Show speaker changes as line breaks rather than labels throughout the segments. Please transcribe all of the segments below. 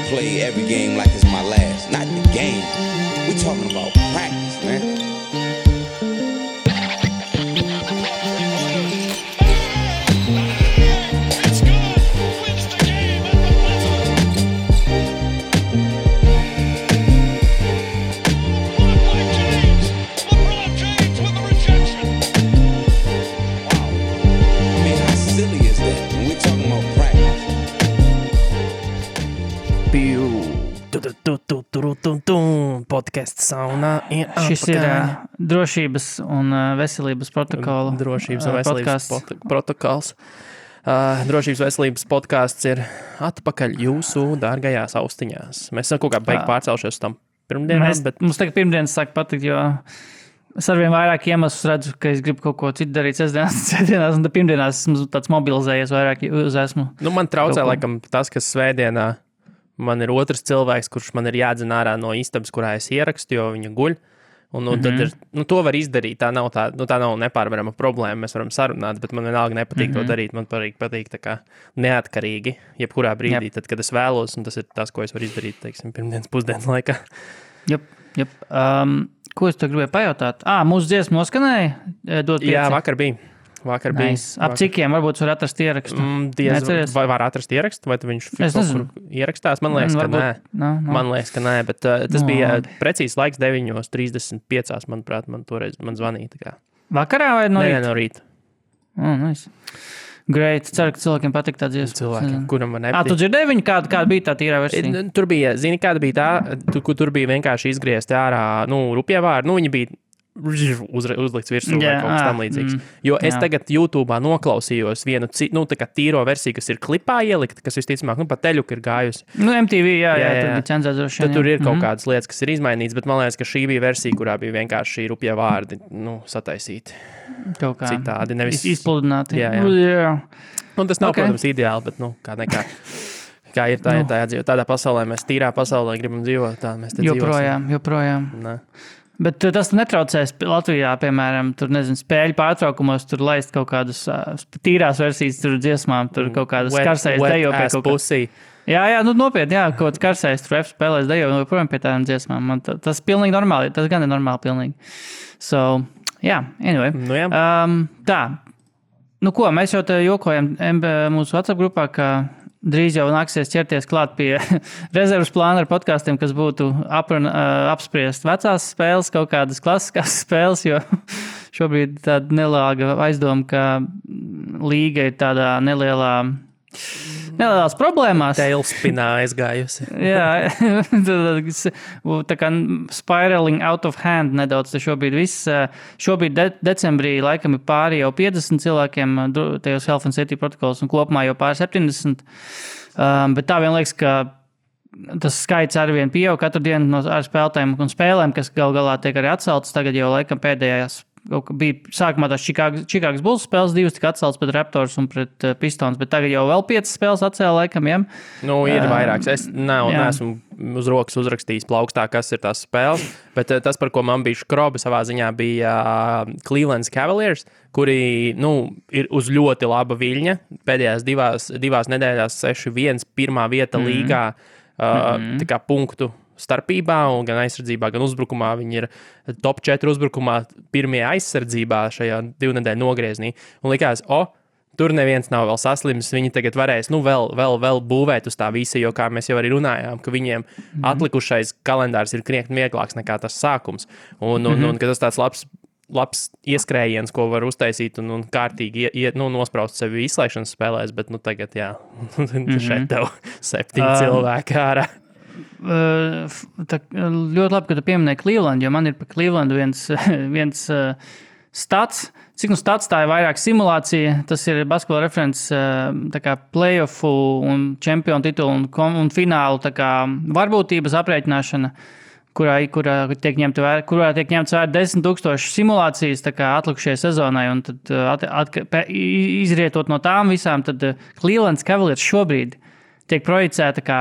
play every game like it's my last. Not the game. We're talking about practice, man.
Podcasts saunā ir
Šis ir drošības un veselības protokola
Drošības un veselības protokols. Drošības veselības podcasts ir atpakaļ jūsu dārgajās austiņās. Mēs esam kaut kā beig pārcelšies uz tam pirmdienām, bet...
Mums tagad pirmdienas sāk patikt, jo es arvien vairāk iemeslus redzu, ka es gribu kaut ko citu darīt sestdienās, un pirmdienās esmu tāds mobilizējies vairāk uz esmu.
Nu, man traucē laikam tas, kas svētdienā man ir otrs cilvēks, kurš man ir jādzen ārā no istabas, kurā es ierakstu, jo viņa guļ. Un tad ir, to var izdarīt, tā nav nepārvarama problēma, mēs varam sarunāt, bet man vienalga nepatīk to darīt, man patīk tā kā neatkarīgi, jebkurā brīdī, tad, kad es vēlos, un tas ir tas, ko es varu izdarīt, teiksim, pirmdienas pusdienas laikā.
Jep. Ko es tev gribēju pajautāt? Mūsu dziesma noskanēja?
Jā, vakar bija.
Nice. Ap cikiem varbūt var atrast ierakstu?
Vai var atrast ierakstu, vai tu viņš ierakstās? Man liekas, ka nē. Man liekas, ka nē, bet tas bija precīzi laiks 9:35, manuprāt, man toreiz zvanīja. Tā kā.
Vakarā vai no rīta?
Nē, no rīta.
Nice. Great. Ceru, ka cilvēkiem patīk tā dziesma.
Cilvēkiem, kuram man nepatīk.
Tu dzirdēji viņu, kāda bija tā tīrā versija?
Tur bija, zini, kāda bija tā, tur bija vienkārši izgriezti ārā, rupjavāri, viņi bija uzlikts virsū vai kaut kas tam līdzīgs. Jo es tagad YouTube'ā noklausījos vienu tā kā tīro versiju, kas ir klipā ielikta, kas visticamāk, pa teļuku ir gājusi.
MTV, jā, tur bija cenzēzošana.
Tad tur ir kaut kādas lietas, kas ir izmainītas, bet man liekas, ka šī bija versija, kurā bija vienkārši rupjie vārdi, sataisīti.
Kaut kā.
Citādi, nevis
izpludināti.
Jā. Un tas nav, protams, ideāli, bet, kā nekā. Kā ir tādā pasaulē, mēs tīrā pasaulē gribam dzīvot, tā mēs te dzīvosim.
Joprojām. Bet tas netraucēs Latvijā, piemēram, tur, spēļu pārtraukumos, tur laist kaut kādas tīrās versijas, tur dziesmām, tur kaut kādas karsējas dejo pie kaut kā. Jā, nopietni, kaut kāds karsējas, tur F spēlēs dejo, projām pie tādām dziesmām. Tas pilnīgi normāli, tas gan ir normāli pilnīgi. So, anyway. Tā, ko, mēs jau te jokojam mūsu WhatsApp grupā, ka drīz jau nāksies ķerties klāt pie rezervas plāna ar podkastiem, kas būtu apspriest vecās spēles, kaut kādas klasiskās spēles, jo šobrīd tāda nelāga aizdoma, ka līga ir tādā nelielās problēmās.
Tailspinā aizgājusi.
Jā, tā kā spiraling out of hand nedaudz šobrīd viss. Šobrīd decembrī laikam ir pāri jau 50 cilvēkiem tajos Health and Safety protokols un kopumā jau pāri 70. Bet tā vien liekas, ka tas skaits arvien pieaug katru dienu ar spēlētājiem un spēlēm, kas galā tiek arī atceltas. Tagad jau laikam pēdējās bija sākumā tās Chicago Bulls spēles, 2 tika atceltas pret Raptors un pret Pistons, bet tagad jau vēl 5 spēles atcēla laikam, jā?
Ir vairāks. Es neesmu uz rokas uzrakstījis plaukstā, kas ir tās spēles, bet tas, par ko man bija škroba savā ziņā, bija Cleveland Cavaliers, kuri, ir uz ļoti laba viļņa. Pēdējās divās nedēļās 6-1 pirmā vieta līgā, tā kā punktu starpībā, un gan aizsardzībā, gan uzbrukumā. Viņi ir top 4 uzbrukumā, pirmie aizsardzībā šajā 2 nedēļu nogrieznī. Un likās, tur neviens nav vēl saslims, viņi tagad varēs, vēl būvēt uz tā visa, jo kā mēs jau arī runājām, ka viņiem atlikušais kalendārs ir krietni vieglāks nekā tas sākums. Un ka tas tāds labs ieskrējiens, ko var uztaisīt un kārtīgi nospraust sevi izslēgšanas spēlēs, bet tagad, šeit tev 7 cilvēki ārā.
Ļoti labi, ka tu pieminēji Cleveland, jo man ir par Cleveland viens stats. Cik stats tā ir vairāk simulācija, tas ir Basketball Reference tā kā playoffu un čempionu titulu un finālu tā kā varbūtības aprēķināšana, kurā tiek ņemts vērā 10,000 simulācijas tā kā atlikušajai sezonai, un tad izrietot no tām visām, tad Cleveland Cavaliers šobrīd tiek projicēta kā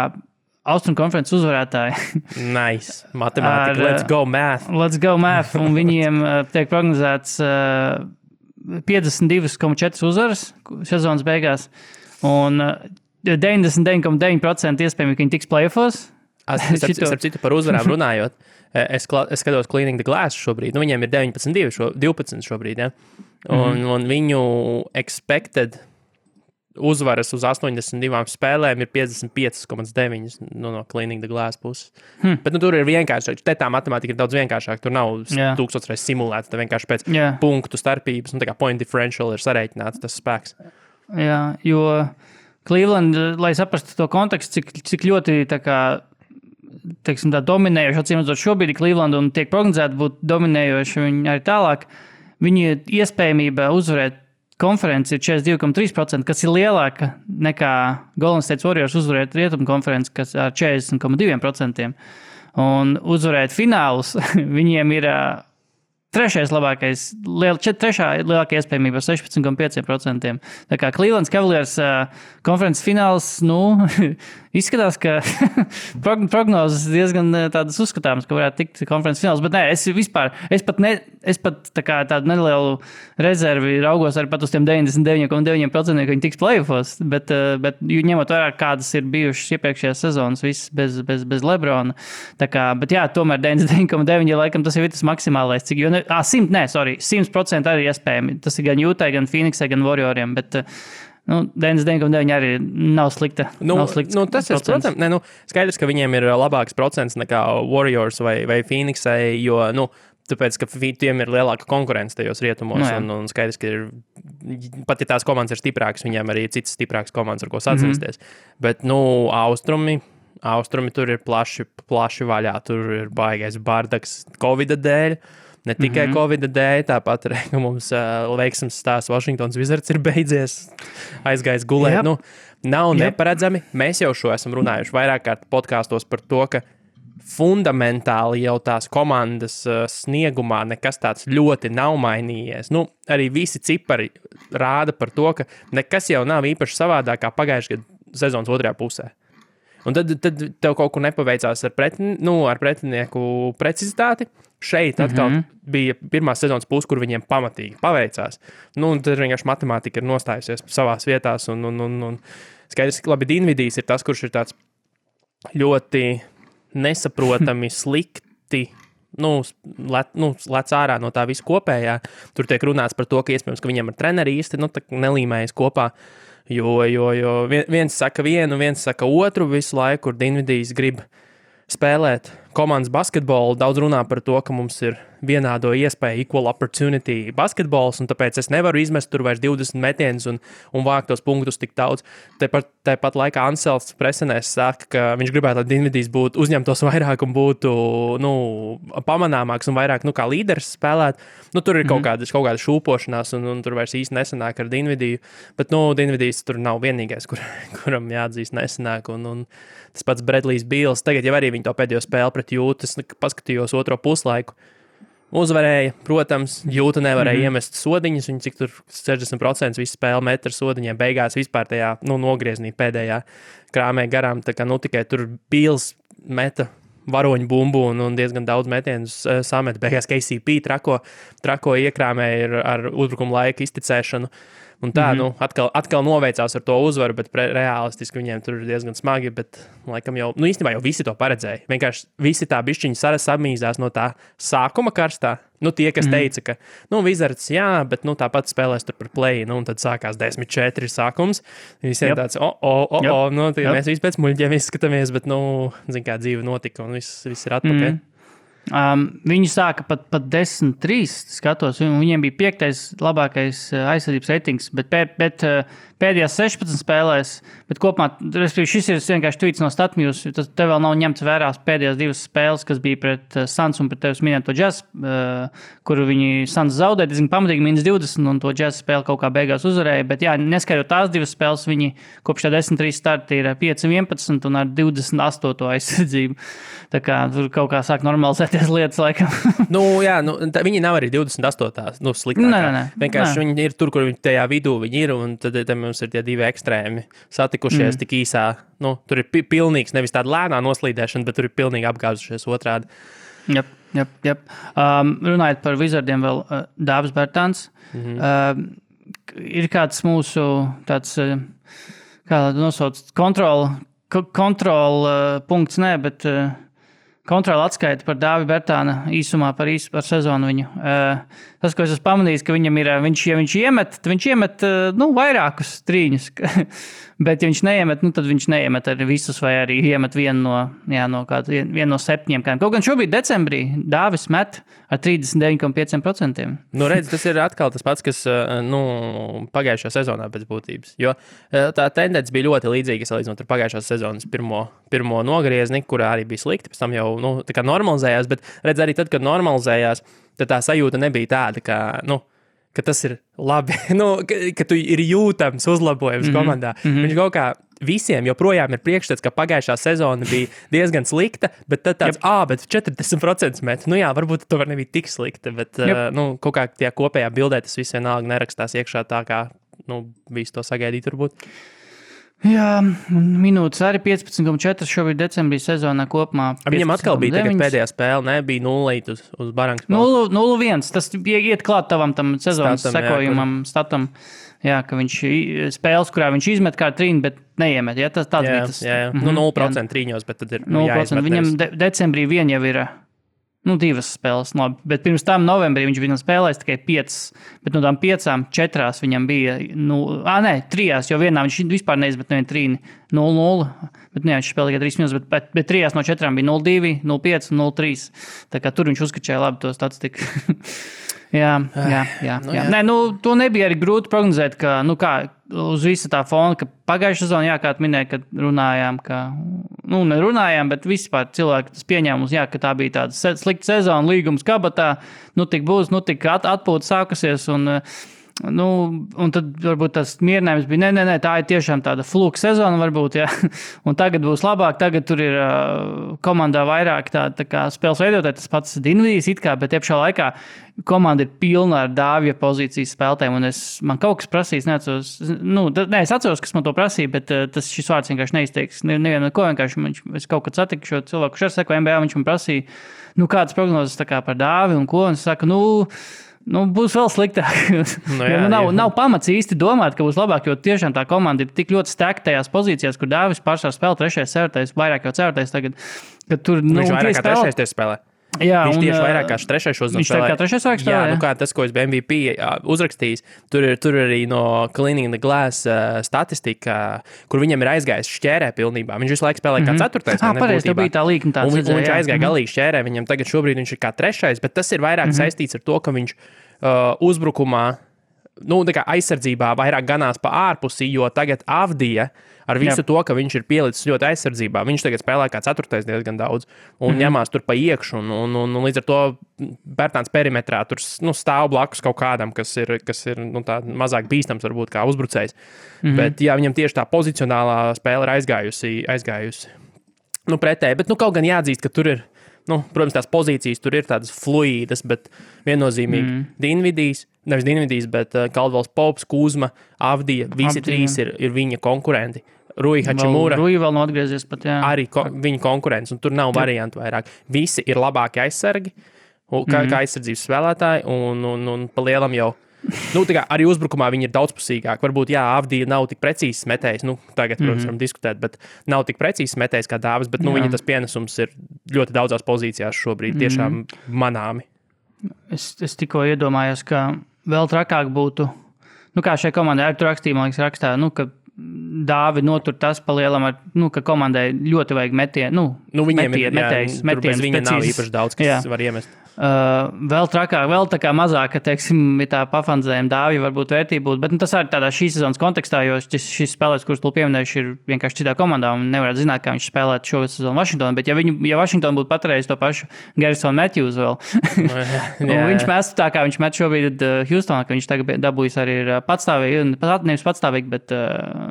Austrum konferences uzvarētāji.
Nice. Matemātika. Let's go math.
Let's go math. Un viņiem tiek prognozēts 52,4 uzvaras sezonas beigās. Un 99,9% iespējami, ka viņi tiks playoffos.
Starp citu par uzvarām runājot, es skatos Cleaning the Glass šobrīd. Nu, viņiem ir 12 šobrīd, ja? Un viņu expected uzvaras uz 82 spēlēm ir 55,9 no Cleaning the Glass puses. Bet tur ir vienkāršāk. Te tā matemātika ir daudz vienkāršāk. Tur nav 1000 reizes simulēts. Tā vienkārši pēc punktu starpības, tā kā point differential ir sarēķināts tas spēks.
Jā, jo Cleveland, lai saprastu to kontekstu, cik ļoti tā kā teiksim, tā dominējoši, atcīmredzot šobrīd Cleveland un tiek prognozēti būt dominējoši viņi arī tālāk, viņi iespējamība uzvarēt konferenci ir 42,3%, kas ir lielāka nekā Golden State Warriors uzvarēt rietumu konferenci, kas ar 40,2%. Un uzvarēt finālus viņiem ir trešais lielākā iespējamība 16,5%. Tā kā Cleveland Cavaliers konferences fināls, izskatās, ka prognozes diezgan tādas uzskatāmas, ka varētu tikt konferences fināls, bet nē, es pat tā kā tādu nelielu rezervi raugos arī pat uz tiem 99,9%, ka viņi tiks playoffos, bet ņemot vērā, kādas ir bijušas iepriekšējās sezonas, viss bez Lebrona. Tā kā, bet jā, tomēr 99,9, laikam tas jau ir tas maksimālais, cik, 100% arī iespējami. Tas ir gan Jūtai, gan Phoenixai, gan Warrioriem, bet 99,9 arī nav slikta.
Tas ir, protams, skaidrs, ka viņiem ir labāks procents nekā Warriors vai Phoenixai, jo, tāpēc, ka tiem ir lielāka konkurence tajos rietumos, un skaidrs, ka pat ja tās komandas ir stiprākas, viņiem arī ir citas stiprākas komandas, ar ko sacensties. Bet, Austrumi tur ir plaši vaļā, tur ir baigais bardaks Covida dēļ, ne tikai Covida dēļ, tāpat arī, ka mums veiksmes stāsts Washingtons Wizards ir beidzies, aizgājis gulēt. Nav neparedzami. Mēs jau šo esam runājuši vairāk kārt podkāstos par to, ka fundamentāli jau tās komandas sniegumā nekas tāds ļoti nav mainījies. Arī visi cipari rāda par to, ka nekas jau nav īpaši savādāk kā pagājušajā gada sezonas otrajā pusē. Un tad tev kaut kur nepaveicās ar pretinieku precizitāti. Šeit atkal bija pirmā sezonas puse, kur viņiem pamatīgi paveicās. Tad vienkārši matemātika ir nostājusies savās vietās. Un skaidrs, ka labi, Dinvidijs ir tas, kurš ir tāds ļoti nesaprotami slikti, lec ārā no tā visu kopējā. Tur tiek runāts par to, ka iespējams, ka viņiem ar treneri īsti nelīmējas kopā. Jo viens saka vienu, viens saka otru visu laiku, kur Dinvidijs grib spēlēt komandas basketbolu. Daudz runā par to, ka mums ir vienādo iespēju, equal opportunity basketbols, un tāpēc es nevaru izmest tur vairs 20 metienus un vākt tos punktus tik daudz. Tāpat laikā Ansels presenēs saka, ka viņš gribētu, lai Dinvidijs uzņemtos vairāk un būtu pamanāmāks un vairāk kā līderis spēlēt. Tur ir kaut kāda šūpošanās, un tur vairs īsti nesanāk ar Dinvidiju, bet Dinvidijs tur nav vienīgais, kuram jāatzīst nesanāk, un tas pats Bradlijs Beals. Tagad jau arī viņi to pēdējo spēli pret Jūtas, paskatījos otro puslaiku. Uzvarēja, protams, Jūta nevarēja iemest sodiņas, viņi cik tur 60% visu spēli met ar sodiņiem, beigās vispār tajā, nogrieznī pēdējā krāmē garām, tā kā, tikai tur Beals meta varoņu bumbu un diezgan daudz metienus samet, beigās KCP trako iekrāmē ar uzbrukuma laika izticēšanu. Un tā, atkal noveicās ar to uzvaru, bet realistiski viņiem tur ir diezgan smagi, bet laikam jau, īstenībā jau visi to paredzēja. Vienkārši visi tā bišķiņi samīzās no tā sākuma karstā. Tie, kas teica, ka, Wizards, jā, bet, tāpat spēlēs tur par play, un tad sākās 10-4 sākums. Visiem tāds, mēs visi pēc muļģiem izskatāmies, bet, zin kā dzīve notika, un viss ir atpakaļ.
Viņi sāka pat 10-3 skatos, un viņiem bija 5. labākais aizsardzības ratings, bet pēdējās 16 spēlēs, bet kopumā, šis ir vienkārši tweets no Statmjūs, tas te vēl nav ņemts vērās pēdējās 2 spēles, kas bija pret Suns un pret tevis minēto Jazz, kuru viņi Suns zaudēja, diezgan pamatīgi -20, un to Jazz spēli kaut kā beigās uzvarēja, bet jā, neskaidrot tās 2 spēles, viņi kopš tā 10-3 starta ir 5-11 un ar 28. aizsardzību. Tā kā tur kaut kā sāk normalizēties lietas laikam.
Viņi nav arī 28. Sliktākā.
Nē.
Vienkārši viņi ir tur, kur viņi tajā vidū viņi ir, un tad mums ir tie 2 ekstrēmi satikušies tik īsā. Tur ir pilnīgs, nevis tāda lēnā noslīdēšana, bet tur ir pilnīgi apgāzušies otrādi.
Jep. Runājot par Wizardiem vēl, Dāvis Bertāns. Ir kāds mūsu tāds, kā nosauc, kontrola punkts, nē, bet kontrola atskaita par Dāvi Bertāna īsumā par sezonu viņu. Tas, ko es esmu pamanījis, ka viņam ir, ja viņš iemet vairākus trīņus, bet ja viņš neiemet, tad viņš neiemet arī visus, vai arī iemet vienu no 7. Kaut gan šobrīd decembrī Dāvis met ar 39,5%.
Redz, tas ir atkal tas pats, kas pagājušajā sezonā pēc būtības. Jo tā tendence bija ļoti līdzīga salīdzinot ar pagājušās sezonas pirmo nogriezni, kurā arī bija slikti, pēc tam jau tā kā normalizējās, bet redz arī tad, kad normalizējās, tad tā sajūta nebija tāda, ka tas ir labi, ka tu ir jūtams uzlabojums komandā. Viņš kaut kā visiem joprojām ir priekšstats, ka pagājušā sezona bija diezgan slikta, bet tad tāds, bet 40% met. Varbūt to var nebija tik slikta, bet kaut kā tie kopējā bildē tas viss vienalga nerakstās iekšā tā, kā visu to sagaidīt varbūt.
Jā, minūtes arī 15,4 šobrīd decembrī sezonā kopumā.
Viņam atkal bija tagad pēdējā spēle, bija 0 uz barangas.
0-1, tas iet klāt tavam tam sezonas sekojumam, statam. Jā, ka viņš spēles, kurā viņš izmet kā trīni, bet neiemet. Ja? Tas bija tas.
Jā. 0% trīņos, bet tad ir
0%. Viņam decembrī vien jau ir 2 spēles, labi. Bet pirms tam novembrī viņš bija spēlējis tikai 5, bet no tām 5, 4 viņam bija, 3, jo vienā viņš vispār neizmet nevienu trīni 0-0, bet viņš spēlēja tikai 3 minūtes, bet 3 no 4 bija 0-2, 0-5 un 0-3. Tā kā tur viņš uzskačēja labi to statistiku. Jā. Nē, to nebija arī grūti prognozēt, ka, kā uz visa tā fona, ka pagājušā sezonā, kā tu minēji, kad runājām, nerunājām, bet vispār cilvēki tas pieņēmums, ka tā bija tāda slikta sezona, līgums kabatā, tik būs, tik atpūta sākusies un tad varbūt tas mierinājums bija, nē, tā ir tiešām tāda fluka sezona varbūt, un tagad būs labāk, tagad tur ir komandā vairāk tā kā spēles veidotāji, tas pats Dinvidijs it kā, bet iepšā laikā komanda ir pilna ar Dāvija pozīcijas spēlētājiem, un man kaut kas prasīs, es atceros, kas man to prasīja, bet šis vārds vienkārši neizteiks, nevienu ko vienkārši, es kaut kad satiku šo cilvēku, kurš ar seko NBA, viņš man prasīja, kādas prognozes tā kā par Dāvi un ko, un es saku, būs vēl sliktāk. Nav pamats īsti domāt, ka būs labāk, jo tiešām tā komanda ir tik ļoti stekta tajās pozīcijās, kur Dāvis pārsvarā spēlē 3. ceturtais, vairāk jau ceturtais tagad, kad tur
viņš vairāk kā 3. spēlē.
Jā,
viņš tieši vairāk kā 3. šodien
spēlē. Viņš tā kā 3. vairāk spēlē,
jā. Kā tas, ko es biju MVP uzrakstījis, tur arī no Cleaning the Glass statistika, kur viņam ir aizgājis šķērē pilnībā. Viņš visu laiku spēlē kā 4.
Pareizi, tā bija tā līkuma tāds.
Un viņš aizgāja galīgi šķērē, viņam tagad šobrīd viņš ir kā 3. Bet tas ir vairāk saistīts ar to, ka viņš uzbrukumā, tā kā aizsardzībā vairāk ganās pa ārpusi, jo tagad Avdija ar visu to, ka viņš ir pielicis ļoti aizsardzībā, viņš tagad spēlē kā 4. diezgan daudz un ņemās tur pa iekšu un līdz ar to Bertāns perimetrā tur stāv blakus kaut kādam, kas ir tā mazāk bīstams varbūt kā uzbrucējs. Bet viņam tieši tā pozicionālā spēle ir aizgājusi. Pretēji, bet kaut gan jāatzīst, ka tur ir protams, tās pozīcijas tur ir tādas fluīdas, bet viennozīmīgi nevis Dinvidijs, bet Caldwells Pops, Kuzma, Avdija, visi 3 ir viņa konkurenti. Rui Hachimura.
Rui vēl nav atgriezies pat, jā.
Arī viņa konkurents, un tur nav variantu vairāk. Visi ir labāki aizsargi, kā aizsardzības spēlētāji, un pa lielam jau arī uzbrukumā viņi ir daudzpusīgāki. Varbūt, Avdija nav tik precīzs metējs, tagad, protams, varam diskutēt, bet nav tik precīzs metējs kā Dāvis, bet viņa tas pienesums ir ļoti daudzās pozīcijās šobrīd tiešām manāmi.
Es tikko iedomājos, ka vēl trakāk būtu, kā šai komandai ar tu rakstīja, man liekas, rakstā, ka Dāvi notur tas pa lielam, ka komandai ļoti vajag metienu, metējus,
bez viņa nav īpaši daudz, kas var iemest.
Vēl trakāk, vēl tā kā mazāk, ka, teiksim, tā pafandzējuma Dāvija varbūt vērtība būtu, bet tas arī tādā šīs sezonas kontekstā, jo šis spēlēs, kurus tu pieminējuši, ir vienkārši citā komandā un nevarētu zināt, kā viņš spēlētu šo sezonu Vašingtonā, bet ja Vašingtona būtu paturējis to pašu Garrisonu Matthews vēl, viņš mestu tā, kā viņš met šobrīd Houstonā, ka viņš tagad dabūjis arī ir patstāvīgi, nevis patstāvīgi, bet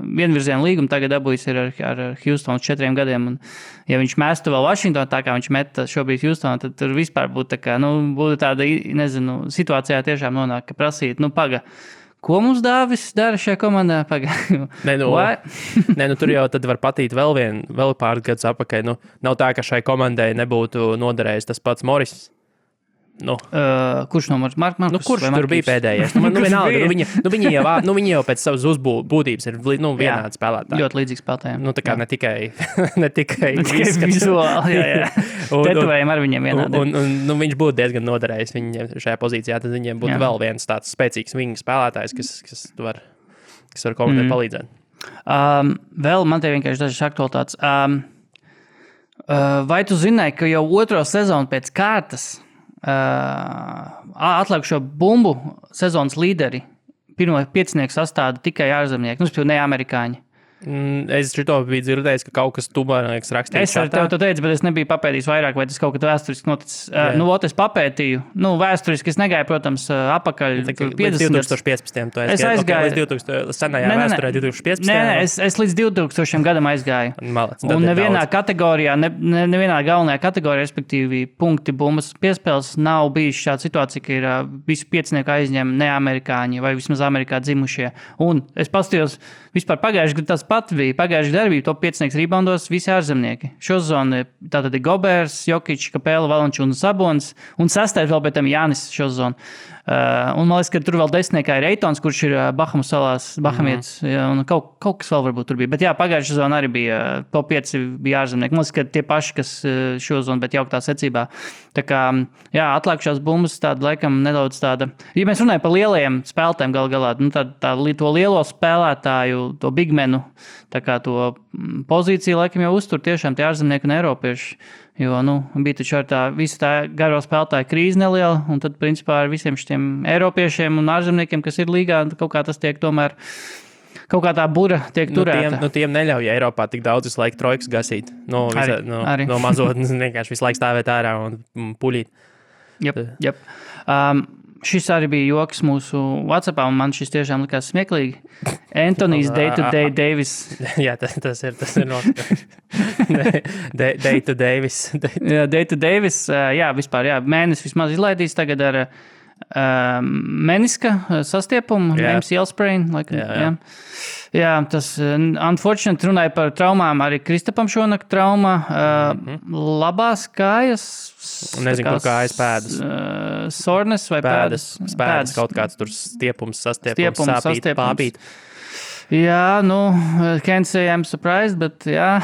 vienvirzienu līgumu tagad dabūjis ir ar Houstonu 4 gadiem, un ja viņš mestu vēl Vašingtonā, tā kā viņš met šobrīd Houstonā, tad tur vispār būtu tā kā būtu tāda, situācijā tiešām nonāk, ka prasīt, paga, ko mums Dāvis dara šajā komandā? Paga.
Tur jau tad var patīt vēl pāris gadus apakaļ. Nav tā, ka šai komandai nebūtu noderējis tas pats Morris.
Kurš numurs? Markus,
kurš tur bija pēdējais? Viņi jau pēc savas uzbūtības ir vienādi spēlētāji.
Ļoti līdzīgi spēlētājiem.
Tā kā ne tikai
vizuāli, jā. Tetovējumi ar viņiem vienādi.
Un viņš būtu diezgan noderējis viņiem šajā pozīcijā, tad viņiem būtu vēl viens tāds spēcīgs vingu spēlētājs, kas var komandai palīdzēt.
Vēl man te vienkārši dažas aktualitātes. Vai tu zināji, ka jau otro sezonu pēc kārtas atlikušo bumbu sezonas līderi pirmo 5 sastāda tikai ārzemnieki, ne amerikāņi?
Es šito biju dzirdējis, ka kaut kas tubānieks rakstīja.
Es ar tevi to teicu, bet es nebiju papētījis vairāk, vai tas kaut kad vēsturiski noticis. Es papētīju. Vēsturiski es negāju, protams, apakaļ
2015.
Es aizgāju.
Līdz 2000 senajā vēsturē 2015.
Nē, es līdz 2000 gadam aizgāju. Un nevienā kategorijā, nevienā galvenajā kategorijā, respektīvi punkti bumbas piespēles, nav bijis šāda situācija, ka ir visu 5 aizņem neamerikāņi vai vismaz Amerikā dzimušie. Un es pastījos vispār pagājuši, tas pat bija. Pagājuši darbība top 5 reboundos visi ārzemnieki. Šo zonu tātad ir Gobers, Jokic, Kapela, Valančs un Sabons. Un 6. vēl pēc tam Jānis šo zonu. Un man liekas, ka tur vēl 10. ir Eitons, kurš ir Bahamu salās, Bahamietis. Un kaut kas vēl varbūt tur bija. Bet jā, pagājušā zona arī bija top 5 bija ārzemnieki. Man liekas, ka tie paši, kas šo zonu, bet jauktā secībā. Tā kā, jā, atlikušās bumbas tāda laikam nedaudz tāda. Ja mēs runājam par lielajiem spēlētājiem galā, to lielo spēlētāju, to bigmenu, tā kā to pozīciju laikam jau uztur tiešām tie ārzemnieki un eiropieši. Jo, bija taču ar visa tā garo spēlētāju krīze neliela, un tad, principā, ar visiem šiem eiropiešiem un ārzemniekiem, kas ir līgā, kaut kā tas tiek tomēr, kaut kā tā bura tiek turēta.
Tiem neļauj Eiropā tik daudz visu laiku trojkas gasīt. No mazotnes vienkārši visu laiku stāvēt ārā un puļīt.
Jep. Šis arī bija joks mūsu WhatsAppā, un man šis tiešām likās smieklīgi. Antonijs Day-to-Day Davis.
Jā, tas ir notiekums. Day-to Davis.
Day-to Davis, jā, vispār, jā. Mēnesis vismaz izlaidīs tagad ar meniska sastiepumu, MCL sprain. Jā, tas unfortunately runāja par traumām, arī Kristapam šonakt trauma, labās kājas.
Nezinu, ko kājas pēdas.
Sornes vai pēdas?
Pēdas kaut kāds tur stiepums, sāpīt, pāpīt.
Jā, can't say I'm surprised, bet jā.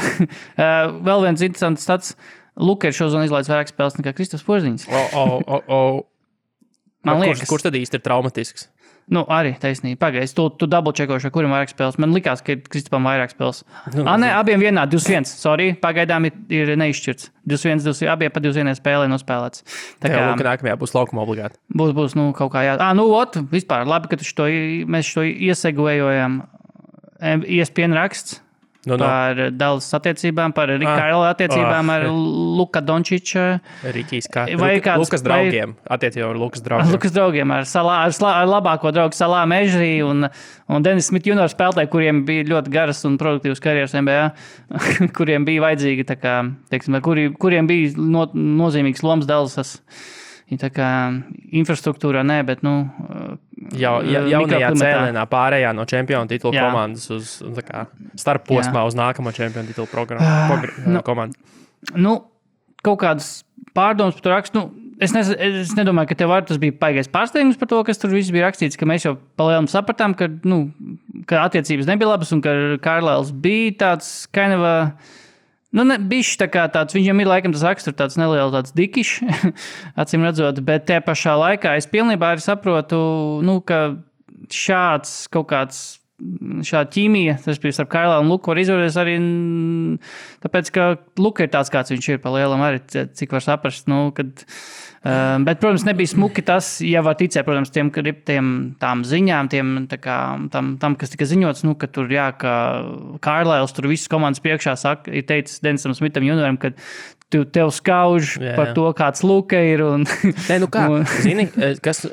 Vēl viens interesants stats. Luka ir šozonu izlaidis vairāk spēles nekā Kristaps Porziņš. Man liekas.
Kurš tad īsti ir traumatisks?
Arī taisnība. Pagaidzi, tu double-čekoši, kurim vairāk spēles. Man likās, ka Kristapam vairāk spēles. Nē, abiem vienā, 21. Sorry, pagaidām ir neizšķirts. 21, abiem pa 21 spēlē nospēlēts.
Tā kā nākamajā būs laukuma obligāti.
Būs, kaut kā jā. Vispār, labi, ka mēs šo iesegojojam. ESPN raksts. Par Dallas attiecībām, par Rikaila attiecībām ar Luka Dončiča.
Lukas draugiem. Attiecībām ar Lukas draugiem.
Lukas draugiem ar labāko draugu Salā Mežrī un Dennis Smith junior spēlētāji, kuriem bija ļoti garas un produktīvas karjeras NBA, kuriem bija vajadzīgi, tā kā, teiksim, kuriem bija nozīmīgs lomas Dallasas. Tā kā infrastruktūrā nē, bet,
jaunajā cēlienā pārējā no čempionu titula komandas uz starp posmā uz nākamo čempionu titula komandu.
Kaut kādas pārdomas par to rakstu. Es nedomāju, ka tev tas bija baigais pārsteigums par to, kas tur viss bija rakstīts, ka mēs jau palielam sapratām, ka attiecības nebija labas un ka Kārlēls bija tāds bišķi tā kā tāds, viņam ir laikam tas raksturs tāds neliels tāds dikišs, acīm redzot, bet te pašā laikā es pilnībā arī saprotu, ka šāds kaut kāds, šāda ķīmija, tas bija starp Kailā un Luku var izvēlēties arī, tāpēc, ka Luka ir tāds, kāds viņš ir pa lielam arī, cik var saprast, bet, protams, nebija smuki tas, ja var ticēt, protams, tām ziņām, tam, kas tika ziņots, ka tur, ka Kārlēls tur visas komandas priekšā ir teicis Denisam Smitham junioram, ka tev skauž par to, kāds Luka ir.
Zini, kas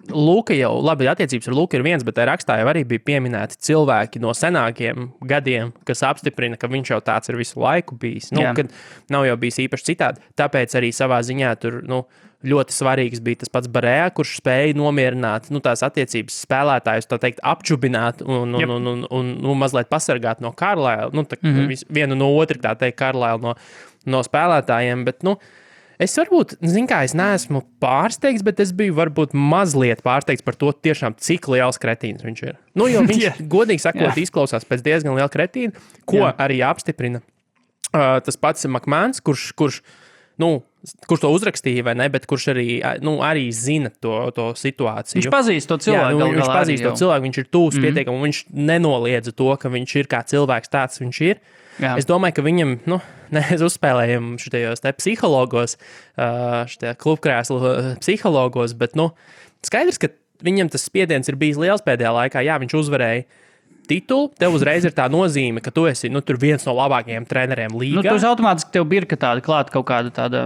Luka jau, labi, attiecības ar Luku ir viens, bet rakstā jau arī bija pieminēti cilvēki no senākiem gadiem, kas apstiprina, ka viņš jau tāds ir visu laiku bijis, kad nav jau bijis īpaši citādi. Tāpēc arī savā ziņā tur, ļoti svarīgs bija tas pats Barējā, kurš spēja nomierināt tās attiecības spēlētājus, tā teikt, apčubināt un mazliet pasargāt no Kārlēla, vienu no otru, tā teikt, Kārlēla no spēlētājiem, bet, Es varbūt, es neesmu pārsteigts, bet es biju varbūt mazliet pārsteigts par to tiešām, cik liels kretīns viņš ir. Nu, jo viņš, godīgi sakot, izklausās pēc diezgan liela kretīna, ko arī apstiprina tas pats McMahons, kurš to uzrakstīja, vai ne, bet kurš arī zina to situāciju.
Viņš pazīst to cilvēku.
Viņš pazīst to cilvēku, viņš ir tūs pietiekami, un viņš nenoliedza to, ka viņš ir kā cilvēks tāds, viņš ir. Jā. Es domāju, ka viņam, mēs uzspēlējam šitajos te psihologos, šitajā klubkrēslu psihologos, bet, skaidrs, ka viņam tas spiediens ir bijis liels pēdējā laikā. Jā, viņš uzvarēja titulu, tev uzreiz ir tā nozīme, ka tu esi tur viens no labākajiem treneriem līgā.
Tu automātiski tev birka tāda klāt kaut kāda tāda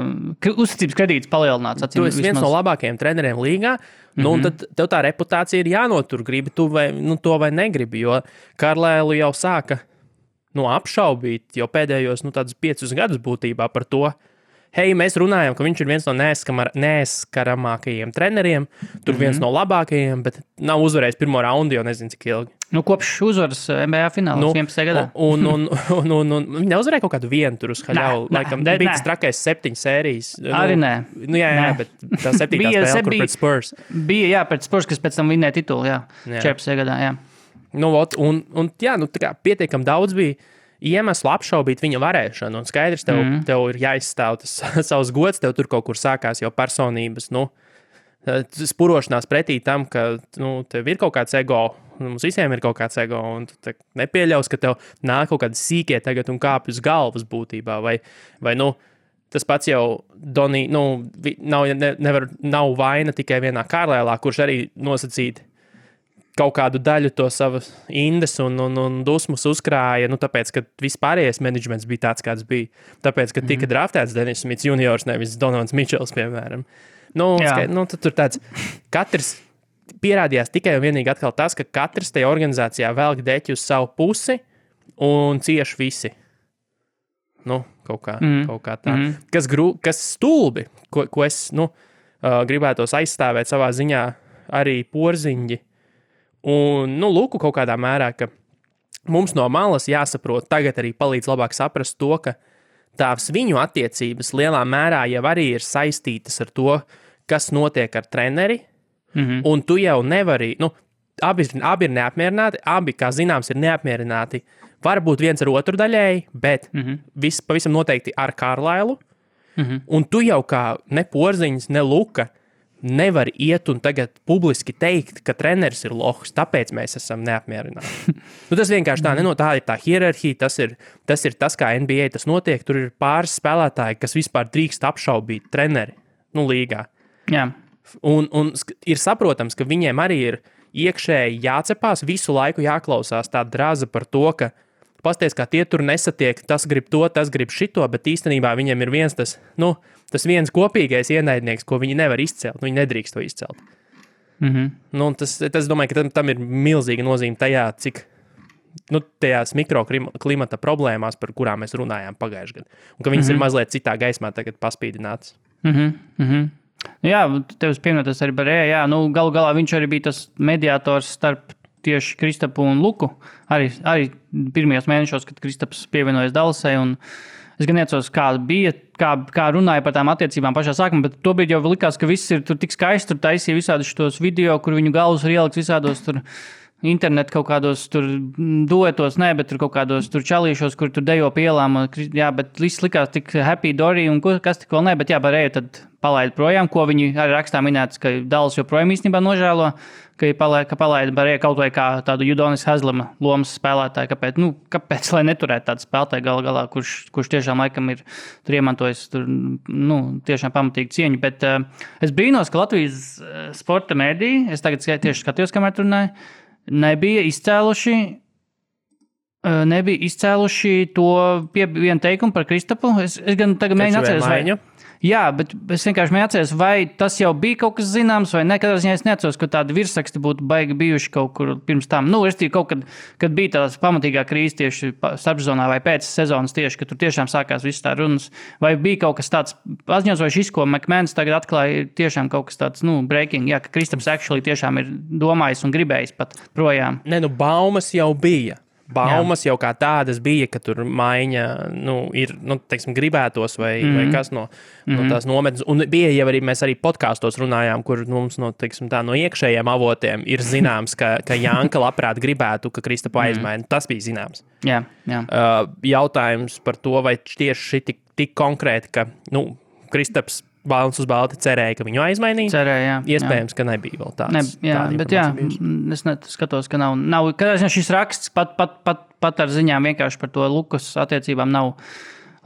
uzticības kredīts palielināts.
Tu esi viens no labākajiem treneriem līgā, un tad tev tā reputācija ir jānotur, gribi tu vai, to vai negribi, jo Karlēlu jau sāka apšaubīt jau pēdējos tādus 5 gadus būtībā par to, mēs runājam, ka viņš ir viens no neaizskaramākajiem treneriem, tur viens no labākajiem, bet nav uzvarējis pirmo raundu, jau nezinu, cik ilgi.
Kopš uzvaras NBA finālā 11. gadā.
Un viņi neuzvarēja kaut kādu vienu tur uz haļavu. Laikam bija tas trakais 7 sērijas.
Arī nē.
Jā, bet tā 7. spēle, kur pret Spurs.
Bija, pret Spurs, kas pēc tam vinnēja titulu, 14. gadā, jā.
Tā kā pietiekam daudz bija iemeslu apšaubīt viņa varēšanu, un skaidrs, tev ir jāizstāv tas savs gods, tev tur kaut kur sākās jau personības, spurošanās pretī tam, ka, tev ir kaut kāds ego, mums visiem ir kaut kāds ego, un tu nepieļaus, ka tev nāk kaut kādi sīkie tagad un kāpj uz galvas būtībā, vai tas pats jau Donī, nav vaina tikai vienā Karlēlā, kurš arī nosacīt kaut kādu daļu to savas indes un dusmas uzkrāja, tāpēc, ka vispārējais menedžments bija tāds, kāds bija. Tāpēc, ka tika draftēts Dennis Smits juniors, nevis Donovans Mičels, piemēram. Tad tur tāds, katrs pierādījās tikai un vienīgi atkal tas, ka katrs tajā organizācijā velk deķi uz savu pusi un cieši visi. Kaut kā tā. Kas stulbi, ko es, gribētos aizstāvēt savā ziņā arī porziņģi. Un, lūku kaut kādā mērā, ka mums no malas jāsaprot, tagad arī palīdz labāk saprast to, ka tās viņu attiecības lielā mērā jau arī ir saistītas ar to, kas notiek ar treneri, un tu jau nevari, abi ir neapmierināti, abi, kā zināms, ir neapmierināti, varbūt viens ar otru daļēji, bet pavisam noteikti ar Karlailu, un tu jau kā ne Porziņš, ne Luka, nevar iet un tagad publiski teikt, ka treneris ir lohs, tāpēc mēs esam neapmierināti. Tas vienkārši tā tā ir tā hierarhija, tas ir tas, kā NBA tas notiek, tur ir pāris spēlētāji, kas vispār drīkst apšaubīt treneri, līgā.
Jā.
Un ir saprotams, ka viņiem arī ir iekšēji jācepās, visu laiku jāklausās tā draza par to, ka pasties, kā tie tur nesatiek, tas grib to, tas grib šito, bet īstenībā viņiem ir viens tas viens kopīgais ienaidnieks, ko viņi nevar izcelt, viņi nedrīkst to izcelt. Tas domāju, ka tam ir milzīga nozīme tajā, cik tajās mikroklimata problēmās, par kurām mēs runājām pagājušajā gadā, un ka viņas ir mazliet citā gaismā tagad paspīdinātas.
Jā, tev pieminētas arī Barēja, galu galā viņš arī bija tas mediātors starp tieši Kristapu un Luku, arī pirmajos mēnešos, kad Kristaps pievienojas Dallasai, un es gan neatceros, kā runāja par tām attiecībām pašā sākumā, bet tobrīd jau likās, ka viss ir tur tik skaisti, tur taisīja visādus šos video, kur viņu galvas ir ieliks visādos tur internetu kaut kādos tur duetos, bet tur kaut kādos tur čalīšos, kur tur dejo pie ielām, bet viss likās tik happy dory un kas tik vēl bet Barēja tad palaida projām, ko viņi arī rakstā minētas, ka Dallas joprojām īstenībā nožēlo, ka palaida Barēja kaut vai kā tādu Udonis Haslema lomas spēlētāju, kāpēc lai neturētu tādu spēlētāju galā, kurš tiešām laikam ir tur iemantojis tur, tiešām pamatīgi cieņu, bet es brīnos, ka Latvijas sporta mēdī, es tagad tieši skatījos, kamēr runāju, nebija izcēluši to vienu teikumu par Kristapu. Es gan tagad mēģinu atceries, jā, bet es vienkārši atceros, vai tas jau bija kaut kas zināms, vai ne. Katrā ziņā es neatceros, ka tādi virsraksti būtu baigi bijuši kaut kur pirms tam. Kaut kad bija tās pamatīgā krīze tieši starpsezonā vai pēc sezonas tieši, ka tur tiešām sākās viss tā runas. Vai bija kaut kas tāds paziņots, vai šis, ko McMahons tagad atklāja, tiešām kaut kas tāds, breaking, jā, ka Kristaps actually tiešām ir domājis un gribējis pat projām.
Baumas jau bija. baumas jau kā tādas bija, ka tur maiņa ir, teiksim, gribētos vai kas no tās nometnes. Un bija jau arī, mēs arī podkāstos runājām, kur mums teiksim, no iekšējiem avotiem ir zināms, ka Janka labprāt gribētu, ka Kristapu aizmaina. Tas bija zināms.
Jā.
Jautājums par to, vai tieši šī tik konkrēti, ka, Kristaps balns uz balti cerēja, ka viņu aizmainīs.
Cerēja,
Iespējams, ka nebija vēl tāds.
Es skatos, ka nav. Kad šis raksts pat ar ziņām vienkārši par to Lukas attiecībām nav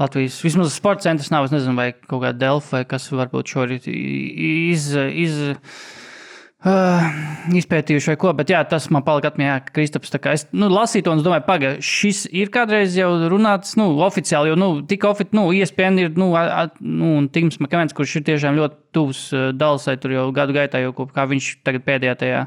Latvijas. Vismaz sporta centrs nav, es nezinu, vai kaut kāda Delfa, vai kas varbūt šorīt izpētījuši vai ko, bet tas man palika atmiņā, ka Kristaps tā kā es lasīju to un es domāju, šis ir kādreiz jau runāts, oficiāli, jo, ESPN ir, un Tims Makavens, kurš ir tiešām ļoti tuvs Dallasai, tur jau gadu gaitā, jau kā viņš tagad pēdējā tajā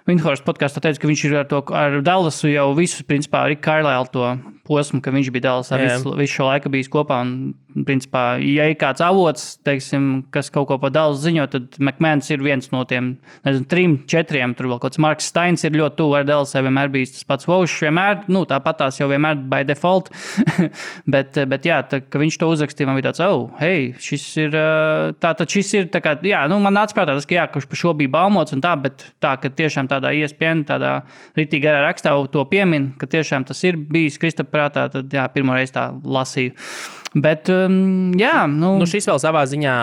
Windhorst podkāstā teica, ka viņš ir ar Dallasu jau visu, principā, Rick Carlisle to posmu, ka viņš bija Dallasā visu šo laiku bijis kopā, un, principā, ja ir kāds avots, teiksim, kas kaut ko par Dallas ziņo, tad McMahons ir viens no tiem, 3, 4, tur vēl kaut kāds Marks Steins ir ļoti tuvu ar Dallasai, vienmēr bijis tas pats Vaušs, vienmēr, tāpat tās jau vienmēr by default, bet ka viņš to uzrakstīja, man bija tāds, šis ir, šis ir, tā kā, man nāca prātā tas, ka kurš par šo bija baumots un tā, bet tā, ka tiešām tādā ESPN, tādā ritīgi garā rakstā to piemin, ka tiešām tas ir bijis Kristapa prātā, tad pirmo reizi tā lasīju. Bet,
šis vēl savā ziņā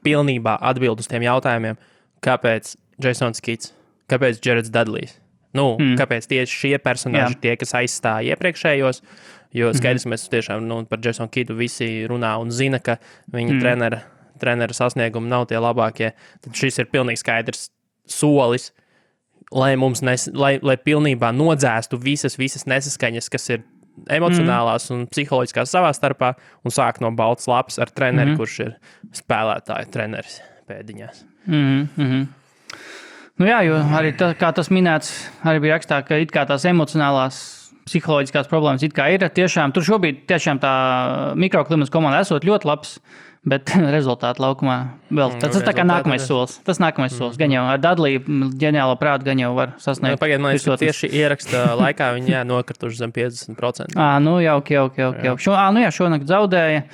pilnībā atbild uz tiem jautājumiem, kāpēc Jasons Kids, kāpēc Jareds Dudlejs, kāpēc tieši šie personāži tie, kas aizstāja iepriekšējos, jo skaidrs, mēs tiešām par Jasonu Kidu visi runā un zina, ka viņa trenera sasniegumi nav tie labākie, tad šis ir pilnīgi skaidrs solis, lai mums lai pilnībā nodzēstu visas nesaskaņas, kas ir emocionālās un psiholoģiskās savā starpā, un sāk no baltas lapas ar treneri, kurš ir spēlētāju treneris pēdiņās.
Jo arī kā tas minēts, arī bija rakstā, ka it kā tās emocionālās psiholoģiskās problēmas it kā ir. Tiešām, tur šobrīd tiešām tā mikroklimats komanda esot ļoti labs, bet rezultāti laukumā vēl. Tas tā kā nākamais solis. Tas nākamais solis. Gan jau ar Dudleju ģeniālo prātu gan jau var sasniegt.
Pagaid, man liekas, ka tieši ieraksta laikā viņi nokrituši zem 50%.
Jauki. Šonakt zaudēja.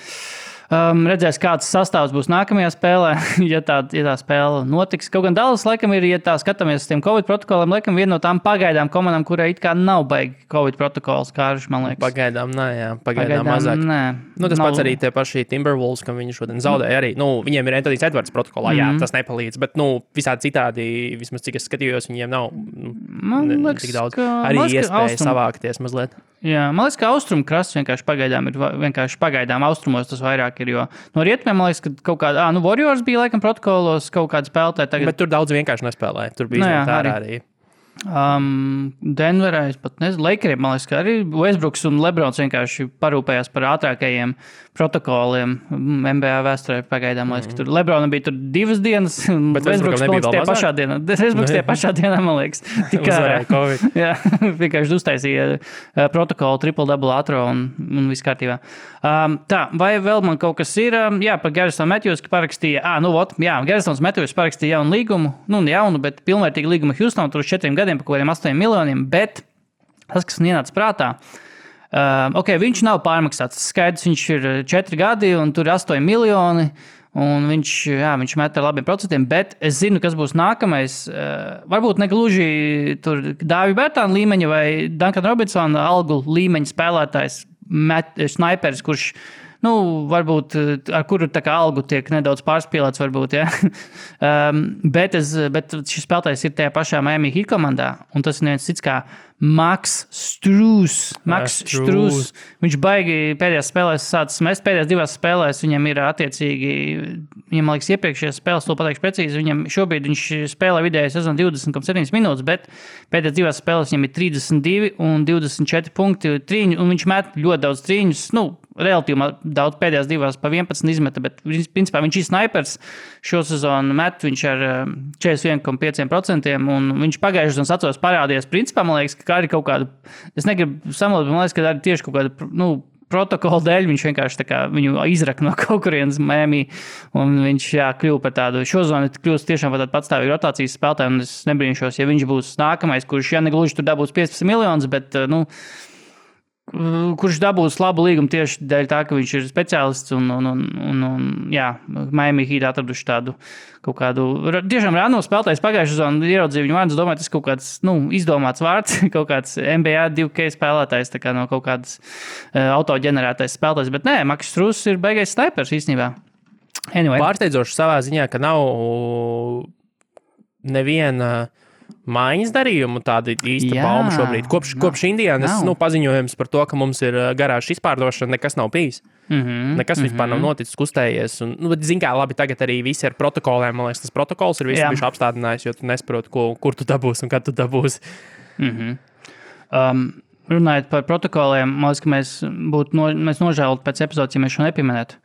Redzēs, kāds sastāvs būs nākamajā spēlē, ja tā spēle notiks. Kaut gan Dallas, laikam, ir, ja tā skatāmies uz tiem Covid protokoliem, laikam, viena no tām pagaidām komandām, kurai it kā nav baigi Covid protokols, Kārš, man liekas.
Pagaidām mazāk. Tas pats arī tie paši Timberwolves, kam viņi šodien zaudēja arī. Viņiem ir Anthony Edwards protokolā, tas nepalīdz, bet, visādi citādi, vismaz cik es skatījos, viņiem nav tik daudz. Arī iespēja savākties mazliet.
Jā, man liekas, ka austrumu krasts vienkārši pagaidām austrumos tas vairāk ir, jo no rietumiem, man liekas, ka kaut kāda, Warriors bija laikam protokolos, kaut kāda spēlētāja tagad.
Bet tur daudz vienkārši nespēlēja, tur bija arī.
Denverā, es pat nezinu, Lakeriem, man liekas, ka arī Westbrooks un Lebrons vienkārši parūpējās par ātrākajiem protokoliem NBA vēsturē pagaidām. Man liekas, ka tur Lebronam bija tur 2 dienas, un Westbrooks tie pašā dienā. Westbrooks tie pašā dienā, man liekas.
Uzvarēja Covid.
Jā, vienkārši uztaisīja protokolu triple-double ātro un viss kārtībā. Vai vēl man kaut kas ir? Par Garrison Matthews, ka parakstīja, Garrisons Matthews parakstīja jaunu līgumu, bet pilnvērtīgu līgumu Houston, tur uz 4 gadiem par kaut kādiem 8 miljoniem, bet tas, kas man ienāca prātā, viņš nav pārmaksāts. Skaidrs, viņš ir 4 gadi un tur ir 8 miljoni, un viņš met ar labiem procentiem, bet es zinu, kas būs nākamais. Varbūt ne gluži tur Dāvi Bērtāna līmeņa vai Duncan Robinsona algu līmeņa spēlētājs, snaiperis, kurš varbūt ar kuru tā kā algu tiek nedaudz pārspīlēts, varbūt, bet šis spēlētājs ir tajā pašā Miami Heat komandā, un tas ir neviens cits kā Max Strus. Viņš baigi pēdējās spēlēs sācis mest, pēdējās 2 spēlēs viņam ir attiecīgi, viņam liekas iepriekšējās spēles, to pateikšu precīzi, šobrīd viņš spēlē vidēji sezonu 20,7 minūtes, bet pēdējās 2 spēlēs viņam ir 32 un 24 punkti trīņu, un viņš met ļoti daudz trīņus, relatīvi daudz pēdējās 2 pa 11 izmeta, bet principā viņš ir snaipers šo sezonu met, viņš ar 41,5%, un viņš pagājušajā sezonas atceros parādījās, principā, man liekas, ka arī kaut kāda, es negribu samalot, man liekas, ka arī tieši kaut kāda, protokola dēļ viņš vienkārši viņu izraka no kaut kurienes Miami, un viņš kļuva par tādu šozonu, kļūst tiešām par tādu patstāvīgu rotācijas spēlētāju, un es nebrīnšos, ja viņš būs nākamais, kurš, negluži tur dabūs 15 miljonus, bet, kurš dabūs labu līgumu tieši dēļ tā, ka viņš ir speciālists un Miami Heat atraduši tādu kaut kādu, tiešām rāno spēlētājs pagājušajā sezonā ieraudzīja viņu vārdus, domāju, tas kaut kāds, izdomāts vārds, kaut kāds NBA 2K spēlētājs, tā kā no kaut kādas autoģenerētais spēlētājs, bet nē, Marcus Strus ir beigais snipers īstenībā. Anyway.
Pārsteidzoši savā ziņā, ka nav neviena maiņas darījumu tāda īsta bauma šobrīd. Kopš Indijānas paziņojums par to, ka mums ir garāžas izpārdošana, nekas nav bijis. Nekas vispār nav noticis, kustējies. Zin kā, labi, tagad arī visi ar protokoliem, man liekas, tas protokols ir visi bijuši apstādinājis, jo tu nesaproti, kur tu dabūsi un kad tu dabūsi.
Runājot par protokoliem, man liekas, ka mēs nožēlot pēc epizodes, ja mēs šo nepieminētu.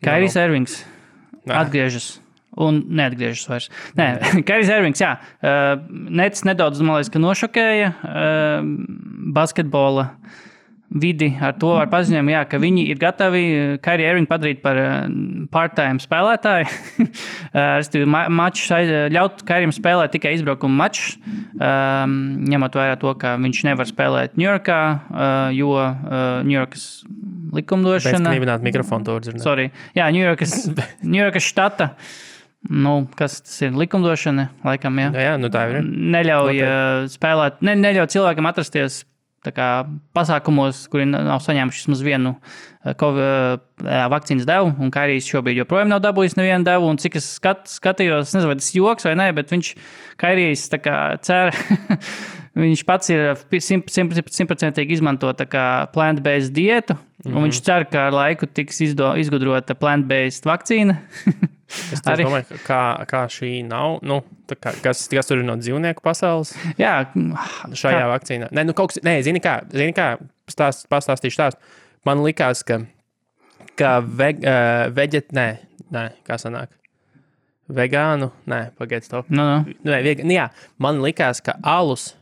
Kairijs Irvings atgriežas. Un neatgriežas vairs. Nē, Kairijs Irvings, Nets nedaudz, man liekas, ka nošokēja basketbola vidi ar to ar paziņojumu, ka viņi ir gatavi Kairiju Irvingu padarīt par part-time spēlētāju. Ļaut Kairijam spēlēt tikai izbraukumu mačus, ņemot vērā to, ka viņš nevar spēlēt Ņujorkā, jo Ņujorkas likumdošana...
Pēc knīvināt mikrofonu to dzirdēt.
Sorry. Jā, Ņujorkas štata... kas tas ir likumdošana, laikam,
Jā, tā ir.
Neļauj spēlēt, neļauj cilvēkam atrasties tā kā pasākumos, kuri nav saņēmuši vismaz vienu vakcīnas devu, un Kairijs šobrīd joprojām nav dabūjis nevienu devu, un cik es skatījos, nezinu, vai tas joks vai nē, bet Kairijs tā kā cer, viņš pats ir 100% izmanto tā kā plant-based dietu, un viņš cer, ka ar laiku tiks izgudrota plant-based vakcīna.
Es domāju, kā šī nav, kas tur ir no dzīvnieku pasaules?
Jā.
Šajā vakcīnā. Zini kā, pastāstīšu stāstu. Man likās, ka kā sanāk? Vegānu? Pagaid, stop. Man likās, ka alus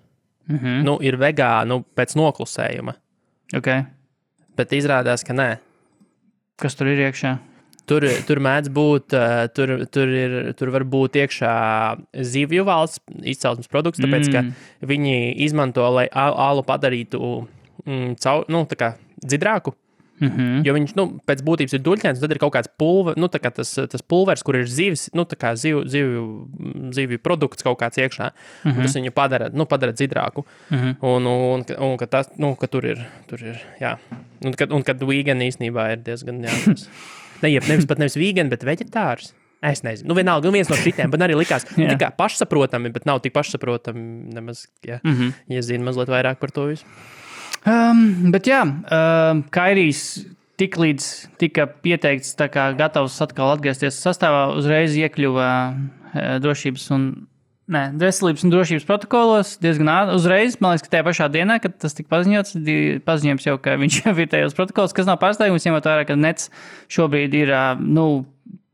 ir vegānu pēc noklusējuma.
Okay.
Bet izrādās, ka nē.
Kas tur ir iekšā?
Tur mēdz būt, tur var būt iekšā zivju valsts izcelsmes produkts, tāpēc, ka viņi izmanto, lai alu padarītu tā kā dzidrāku. Jo viņš, pēc būtības ir duļķēns, tad ir kaut kāds tā kā tas pulvers, kur ir zivis, tā kā zivju produkts kaut kāds iekšā. Tas viņu padara dzidrāku. Un ka tas, ka tur ir, jā. Un kad vegan īstenībā ir diezgan, jā. Nevis vegan, bet veģetārs. Es nezinu. Vienalga, viens no šitiem, bet arī likās tikai pašsaprotami, bet nav tik pašsaprotami nemaz, ja zina mazliet vairāk par to visu.
Bet jā, Kairijs tiklīdz tika pieteikts tā kā gatavs atkal atgriezties sastāvā, uzreiz iekļuva veselības un drošības protokolos diezgan uzreiz. Man liekas, ka tajā pašā dienā, kad tas tika paziņojums jau, ka viņš jau ir tajos protokolos, kas nav pārsteigums, ņemot vērā, ka Nets šobrīd ir,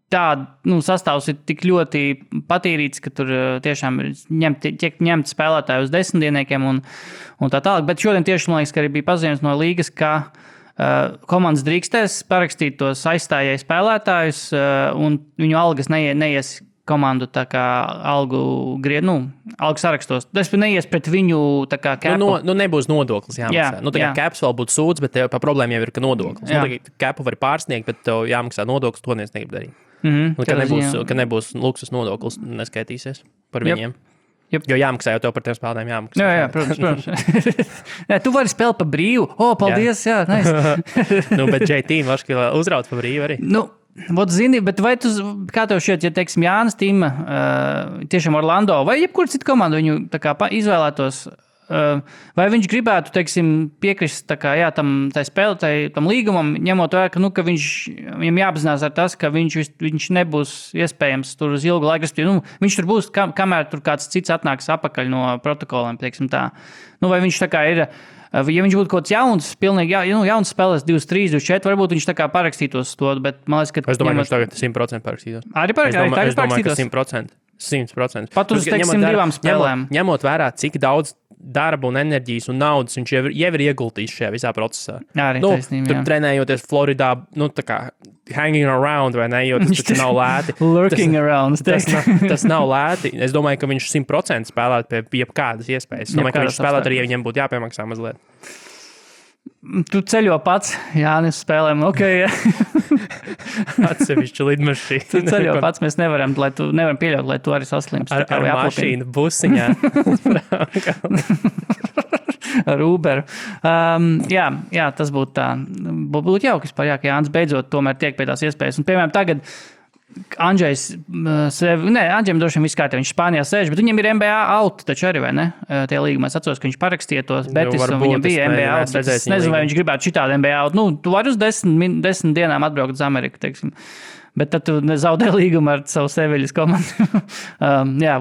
sastāvs ir tik ļoti patīrīts, ka tur tiešām tiek ņemt spēlētāji uz 10 dienniekiem un tā tālāk. Bet šodien tieši, man liekas, ka arī bija paziņojums no līgas, ka komandas drīkstēs parakstīt tos aizstājēju spēlētājus un viņu algas neies komandu tā kā algu sarakstos. Tas neies pret viņu tā kā capu.
Nebūs nodoklis jāmaksā. Tā kā caps vēl būtu sūds, bet tev problēma jau ir, ka nodoklis. Capu var pārsniegt, bet tev jāmaksā nodoklis, to neviens negrib darīt. Ka nebūs luksus nodoklis, neskaitīsies par viņiem. Jo jāmaksā, jau tev par tiem spēlētājiem jāmaksā.
Jā, protams. Tu vari spēlēt pa brīvu. Paldies, jā, nice.
Bet JT varš uzraut pa brīvu arī.
Zini, bet vai kā tev šķiet, ja, teiksim, Jānis Tima, tiešām Orlando, vai jebkur citu komandu viņu tā kā izvēlētos, vai viņš gribētu, teiksim, piekrist tā kā, tam līgumam, ņemot vērā, ka viņam jāapzinās ar tas, ka viņš nebūs iespējams tur uz ilgu laiku. Viņš tur būs, kamēr tur kāds cits atnāks apakaļ no protokoliem, teiksim tā. Vai viņš tā kā ir... Ja viņš būtu kaut kāds jauns, pilnīgi jauns spēlēs 23, 24, varbūt viņš tā kā parakstītos to, bet man liekas, ka...
Es domāju, ka viņš tagad 100% parakstītos.
Arī parakstītos?
Es domāju, ka 100%. 100%.
Pat uz, teiksim, 2 spēlēm.
Ņemot vērā, cik daudz darba un enerģijas un naudas viņš jau ir ieguldījis šajā visā procesā.
Arī taisnība,
tur trenējoties Floridā, tā kā hanging around, vai ne, jo tas nav lēti.
Lurking around.
Tas nav lēti. Es domāju, ka viņš 100% spēlētu pie jebkādas iespējas. Es domāju, ka viņš spēlētu arī, ja viņam būtu jāpiemaksā mazliet.
Tu ceļo pats, Jānis, spēlēm,
Atsevišķi lidmašīna.
Tu ceļo pats, mēs nevaram pieļaut, lai tu arī saslimst.
Ar mašīnu busiņā.
Ar Uberu. Jā, tas būtu tā. Būtu jauki, ka Jānis beidzot tomēr tiek pie tās iespējas. Un, piemēram, tagad Andžejs Andžejam droši vien viss kārtībā, viņš Spānijā sēž, bet viņam ir NBA out, taču arī, vai ne? Tie līgumi, es atceros, ka viņš parakstīja tos Betis, un viņam bija NBA out. Es nezinu, vai viņš gribētu šitādu NBA out. Tu vari uz 10 dienām atbraukt uz Ameriku, teiksim. Bet tad tu zaudē līgumu ar savu Seviļas komandu.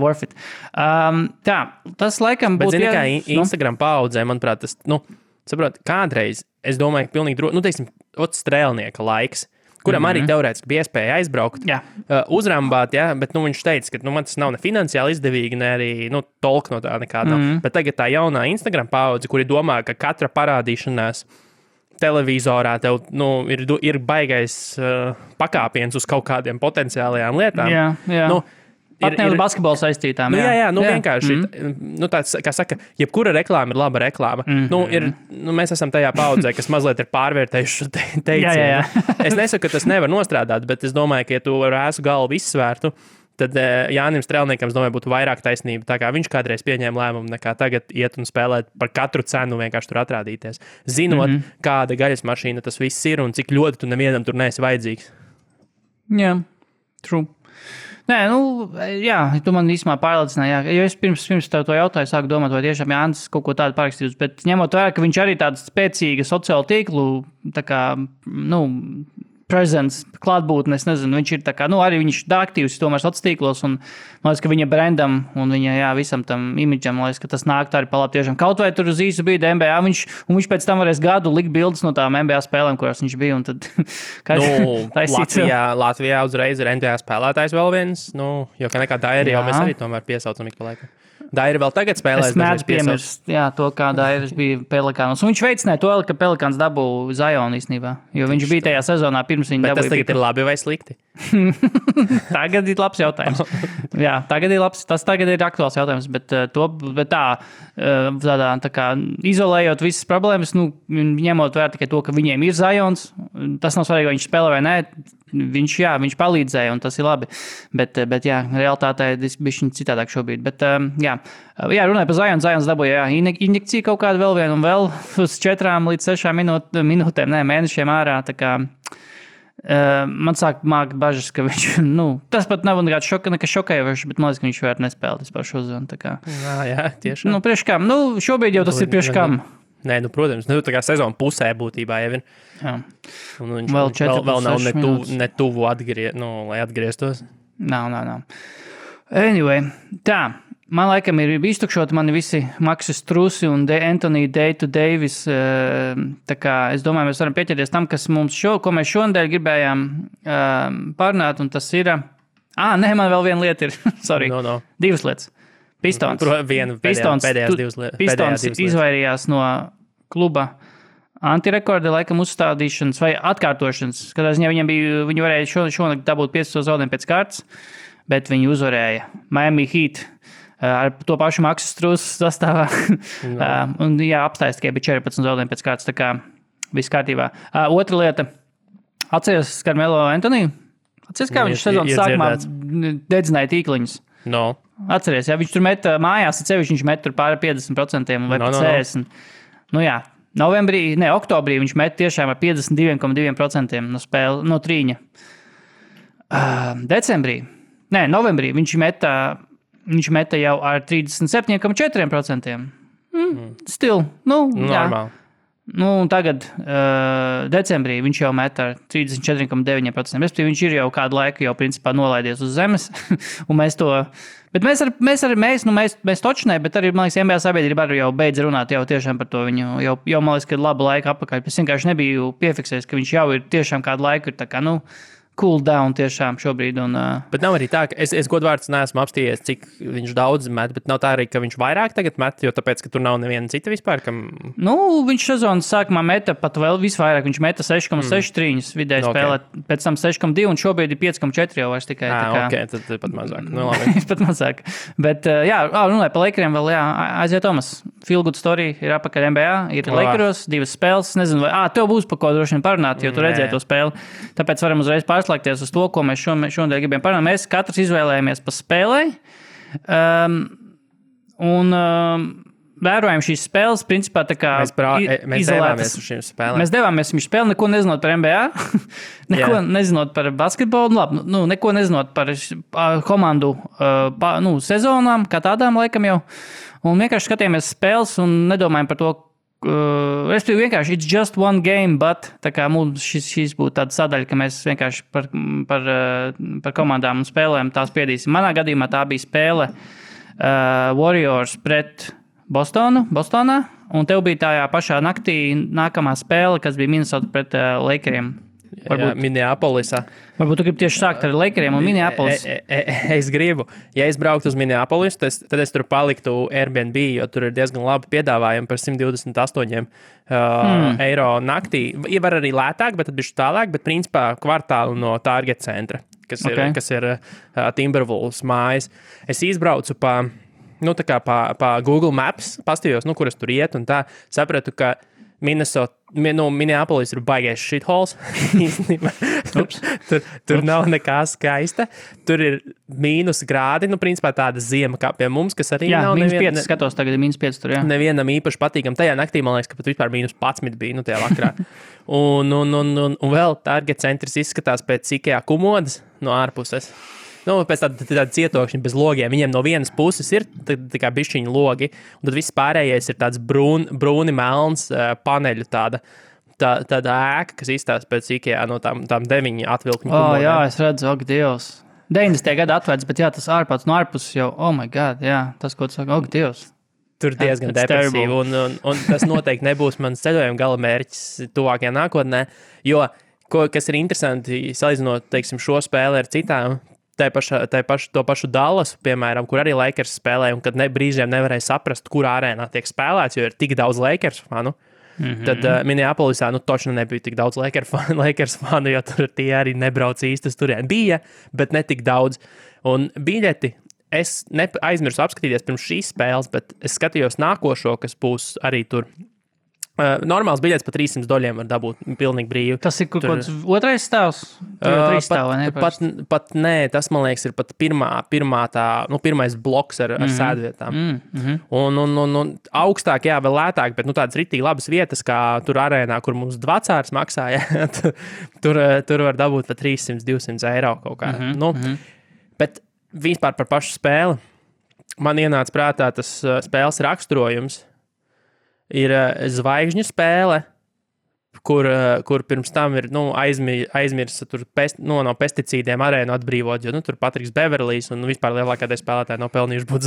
Worth it. Tā, tas laikam būtu...
Bet zini, kā Instagram paudzē, manuprāt, tas, saprot, kādreiz, es domāju, ka pilnīgi droši, strēlnieka laiks, kuram arī teorētiski bija iespēja aizbraukt, uzrambāt, bet viņš teica, ka man tas nav ne finansiāli izdevīgi, ne arī tolk no tā nekāda. Bet tagad tā jaunā Instagram paudze, kuri domā, ka katra parādīšanās televizorā tev ir baigais pakāpiens uz kaut kādiem potenciālajām lietām.
Jā. Pat ne uz basketbolu saistītām.
Vienkārši. Tāds, kā saka, jebkura reklāma ir laba reklāma. Mēs esam tajā paudzē, kas mazliet ir pārvērtējuši teicienu. Es nesaku, ka tas nevar nostrādāt, bet es domāju, ka, ja tu ar ēsu galvu izsvērtu, tad Jānim Strēlniekam, domāju, būtu vairāk taisnība. Tā kā viņš kādreiz pieņēma lēmumu, nekā tagad iet un spēlēt par katru cenu vienkārši tur atrādīties. Zinot, kāda gaļas mašīna tas viss ir un cik ļoti tu nevienam tur neesi vajadzīgs.
Jā, true. Nē, tu man īstenībā pārliecināji, jo es pirms tev to jautāju, sāku domāt, vai tiešām Jānis kaut ko tādu parakstījis, bet ņemot vērā, ka viņš arī tādu spēcīgu sociālu tīklu, tā kā, presence, klātbūtne, es nezinu, viņš ir tā kā, arī viņš ir aktīvs tomēr sociālos tīklos, un man liekas, ka viņa brandam un viņa, visam tam imidžam, man liekas, ka tas nāk tā arī palāp tiešām. Kaut vai tur uz īsu brīdi NBA, viņš pēc tam varēs gadu likt bildes no tām NBA spēlēm, kurās viņš bija, un tad...
Latvijā uzreiz ir NBA spēlētājs vēl viens, jo kā nekā Dairi jau mēs arī tomēr piesaucam ik pa laikam. Dairi vēl tagad spēlēs.
Es mēdzu piemirst, to, kā Dairis bija Pelikānos. Un viņš veicināja to, ka Pelikāns dabū Zionu īstenībā, jo viņš bija tajā sezonā pirms viņa dabūja.
Bet tas tagad ir labi vai slikti?
Tagad ir labs jautājums. Jā, tas tagad ir aktuāls jautājums, bet tā kā izolējot visas problēmas, ņemot vērā tikai to, ka viņiem ir Zions, tas nav svarīgi, vai viņš spēlē vai nē. Viņš palīdzēja, un tas ir labi. Bet realitātē tas bija citādāk šobrīd. Bet, runāja par Zionu. Zions dabūja injekciju kaut kādu vēl vienu un vēl uz 4 līdz 6 minūtēm, mēnešiem ārā. Tā kā, man sāk mākt bažas, ka viņš, tas pat nav nekas šokējošs, bet man liekas, ka viņš vairs nespēlē vispār šo zonu.
Jā, tiešām.
Priekš kam? Šobrīd jau tas ir priekš kam.
Nē, protams, tā kā sezona pusē būtībā jau ir.
Jā.
Un viņš vēl nav ne tuvu lai atgrieztos. Nav.
Anyway, tā. Man laikam ir iztukšoti mani visi Maksis Trusi un Anthony Davis. Tā kā es domāju, mēs varam pieķerties tam, ko mēs šonadēļ gribējām parunāt, un tas ir... man vēl viena lieta ir. Sorry. Divas lietas. Pistons.
Pēdējās divas lietas.
Pistons izvairījās no kluba antirekorda laikam uzstādīšanas vai atkārtošanas. Katrā ziņā viņi varēja šonakt dabūt 5 zaudējumu pēc kārtas, bet viņi uzvarēja Miami Heat ar to pašu Maksu Strūsu sastāvā. Un apstājas tikai bija 14 zaudējumu pēc kārtas, tā kā viss kārtībā. Otra lieta. Atceries Carmelo Anthony? Atceries, kā viņš sezonas sākumā dedzināja tīkliņus?
No.
Atceries, viņš tur met mājās, viņš met tur pāri 50% vai 40%. Oktobrī viņš met tiešām ar 52,2% no trīņa. Novembrī viņš meta jau ar 37,4%. Still,
normāli.
Un tagad decembrī viņš jau met ar 34,9%. Respektīvi, viņš ir jau kādu laiku jau principā nolaidies uz zemes. Un mēs to... Bet mēs točnē, bet arī, man liekas, NBA sabiedrība arī jau beidz runāt jau tiešām par to viņu. Jau man liekas, ka labu laiku apakaļ. Es vienkārši nebiju piefiksējis, ka viņš jau ir tiešām kādu laiku ir tā kā, cool down tiešām šobrīd.
Bet nav arī tā, ka es godvārds neesmu apstījies, cik viņš daudz met, bet nav tā arī, ka viņš vairāk tagad met, jo tāpēc, ka tur nav neviena cita vispār, kam...
Viņš sezonas sākumā meta pat vēl visvairāk, viņš meta 6,6 trīņus vidēji spēlē, pēc tam 6,2 un šobrīd ir 5,4 jau vairs tikai.
Tad pat mazāk. Labi.
Pat mazāk. Bet, runāju par Lakeriem vēl, Aizija Tomas. Feel good story ir apakaļ NBA, ir Lakeros, 2 spēles, nezinu, vai, tev būs par ko droši vien parunāt, jo tu redzēji to spēli. Tāpēc varam uzreiz pārslēgties uz to, ko mēs šodien gribējām parunāt. Mēs katrs izvēlējāmies pa spēlei. Vērojam šīs spēles, principā tā kā
mēs devāmies uz šīm spēlēm.
Mēs devāmies uz šīm spēlēm, neko nezinot par NBA, neko nezinot par basketbolu, labi, neko nezinot par komandu sezonām, kā tādām laikam jau. Un vienkārši skatījāmies spēles un nedomājam par to, respektīvi vienkārši it's just one game, but tā kā mums šis būtu tāda sadaļa, ka mēs vienkārši par komandām un spēlēm tās spiedīsim. Manā gadījumā tā bija spēle Warriors pret Bostonā, un tev bija tajā pašā naktī nākamā spēle, kas bija Minnesota pret Lakeriem.
Minneapolisā.
Varbūt tu gribi tieši sākt ar Lakeriem un Minneapolis.
Es gribu. Ja es brauktu uz Minneapolis, tad es tur paliktu Airbnb, jo tur ir diezgan labi piedāvājumi par 128 eiro naktī. Var arī lētāk, bet tad bišķi tālāk, bet principā kvartālu no Target centra, kas ir Timberwolves mājas. Es izbraucu pa Google Maps, pastījos, kur es tur iet, un tā sapratu, ka Minneapolis ir baigais shitholes. tur nav nekā skaista. Tur ir -5 grādi, principā tāda ziema kā pie mums, kas arī nav
-5 skatos, tagad ir -5 tur, jā.
Nevienam īpaši patīkam. Tajā naktī, man liekas, ka pat vispār -11 bija, tajā vakarā. un vēl Target centrs izskatās pēc IKEA komodas no ārpuses. Pēc tāda cietokšņa bez logiem. Viņiem no vienas puses ir tā kā bišķiņa logi, un tad viss pārējais ir tāds brūni melns paneļu tāda ēka, kas izstāsta pēc IKEA no tām 9 atvilkņu komodēm.
Jā, es redzu, Dievs. 90. gada atvērts, bet jā, tas ārpats no ārpuses jau, oh my God, jā, tas, ko tu saka, Dievs.
Tur diezgan depresīvi, un tas noteikti nebūs mans ceļojuma gala mērķis tuvākajā nākotnē, jo, kas ir interesanti, salīdzinot, teiksim, šo spēli ar citām, to pašu Dallasu, piemēram, kur arī Lakers spēlē, un kad brīžiem nevarēja saprast, kur arēnā tiek spēlēts, jo ir tik daudz Lakers fanu. Tad Minneapolisā točni nebija tik daudz Lakers fanu, jo tur tie arī nebrauc īstas turien. Bija, bet ne tik daudz. Un biļeti es aizmirsu apskatīties pirms šīs spēles, bet es skatījos nākošo, kas būs arī tur. Normāls biļets par $300 var dabūt pilnīgi brīvi.
Tas ir kaut kāds otrais stāvs? Tur jau 3 stāvi, vai ne?
Pat nē, tas, man liekas, ir pat pirmais bloks ar sēdvietām. Un augstāk, jā, vēl lētāk, bet tādas ritīgi labas vietas, kā tur arēnā, kur mums dvacārs maksāja, tur var dabūt par 300-200 eiro kaut kā. Bet vispār par pašu spēli man ienāca prātā tas spēles raksturojums. Ir zvaigžņu spēle, kur pirms tam ir aizmirsa no pesticīdiem arēnu atbrīvot, jo tur Patriks Beverlijs un vispār lielākā daļa spēlētāji nav pelnījuši būt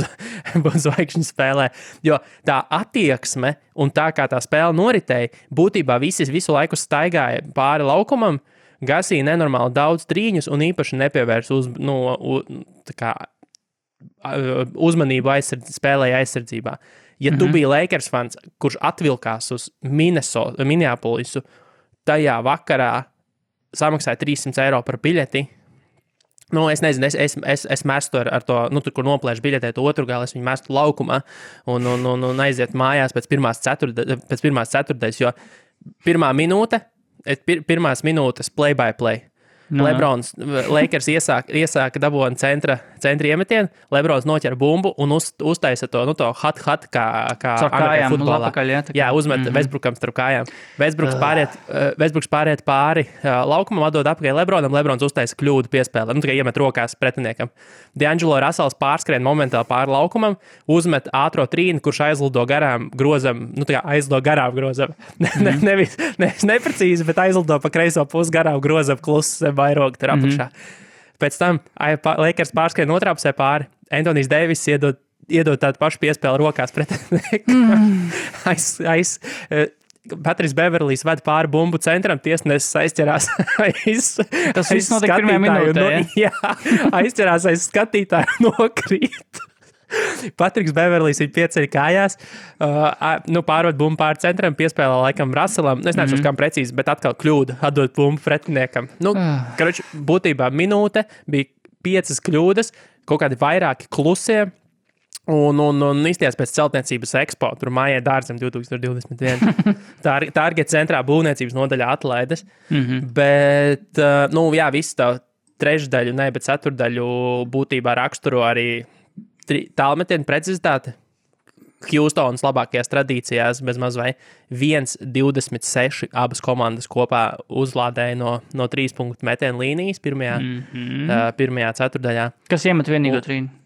zvaigžņu spēlē. Jo tā attieksme un tā kā tā spēle noritēja, būtībā visu laiku staigāja pāri laukumam, gasīja nenormāli daudz trīņus un īpaši nepievērs uzmanību spēlēja aizsardzībā. Ja tu biji Lakers fans, kurš atvilkās uz Minneapolisu, tajā vakarā samaksāja 300 eiro par biļeti. Es nezinu, es mestu ar to, tur, kur noplēšu biļetē to otru galu, es viņu mestu laukumā un aiziet mājās pēc pirmās ceturtdaļas, jo pirmās minūtes play-by-play. Lebrons, Lakers iesāka dabūna centra iemetienu, Lebrons noķer bumbu un uztaisa to hot, kā
kājām,
futbolā. Jā, uzmet Westbrookam starp kājām. Westbrooks pāriet pāri laukumam, atdod apakaļ Lebronam, Lebrons uztaisa kļūdu piespēlē, tikai iemet rokās pretiniekam. D'Angelo Russells pārskrien momentāli pāri laukumam, uzmet ātro trīni, kurš aizlido garām grozam, nevis neprecīzi, bet aizlido pa kreiso pusi garām grozam klusu vairogu tur apakšā. Pēc tam Lakers pārskrien otrā pusē pāri. Anthony's Davis iedod tādu pašu piespēli rokās pretiniekam. Patriks Beverlijs ved pāri bumbu centram, tiesnesis aizķerās
Tas viss notika pirmajā minūtē,
jā, aizķerās aiz skatītāju nokrīt. Patriks Beverlijs ir pieceļ kājās, pārved bumbu pāri centram, piespēlē laikam Russellam, es neesmu kam precīzi, bet atkal kļūda, atdot bumbu pretiniekam. Karoči, būtībā minūte bija 5 kļūdas, kaut kādi vairāki klusie, un izties pēc celtniecības ekspo, tur mājai dārzam 2021. Target centrā būvniecības nodaļā atlaides, bet, visu tā trešdaļu, bet ceturdaļu būtībā raksturo arī tālmetienu precizitāte. Houstonas labākajās tradīcijās bez maz vai 1,26 abas komandas kopā uzlādēja no 3 punktu metienu līnijas pirmajā ceturdaļā.
Kas iemet vienīgo trīnu?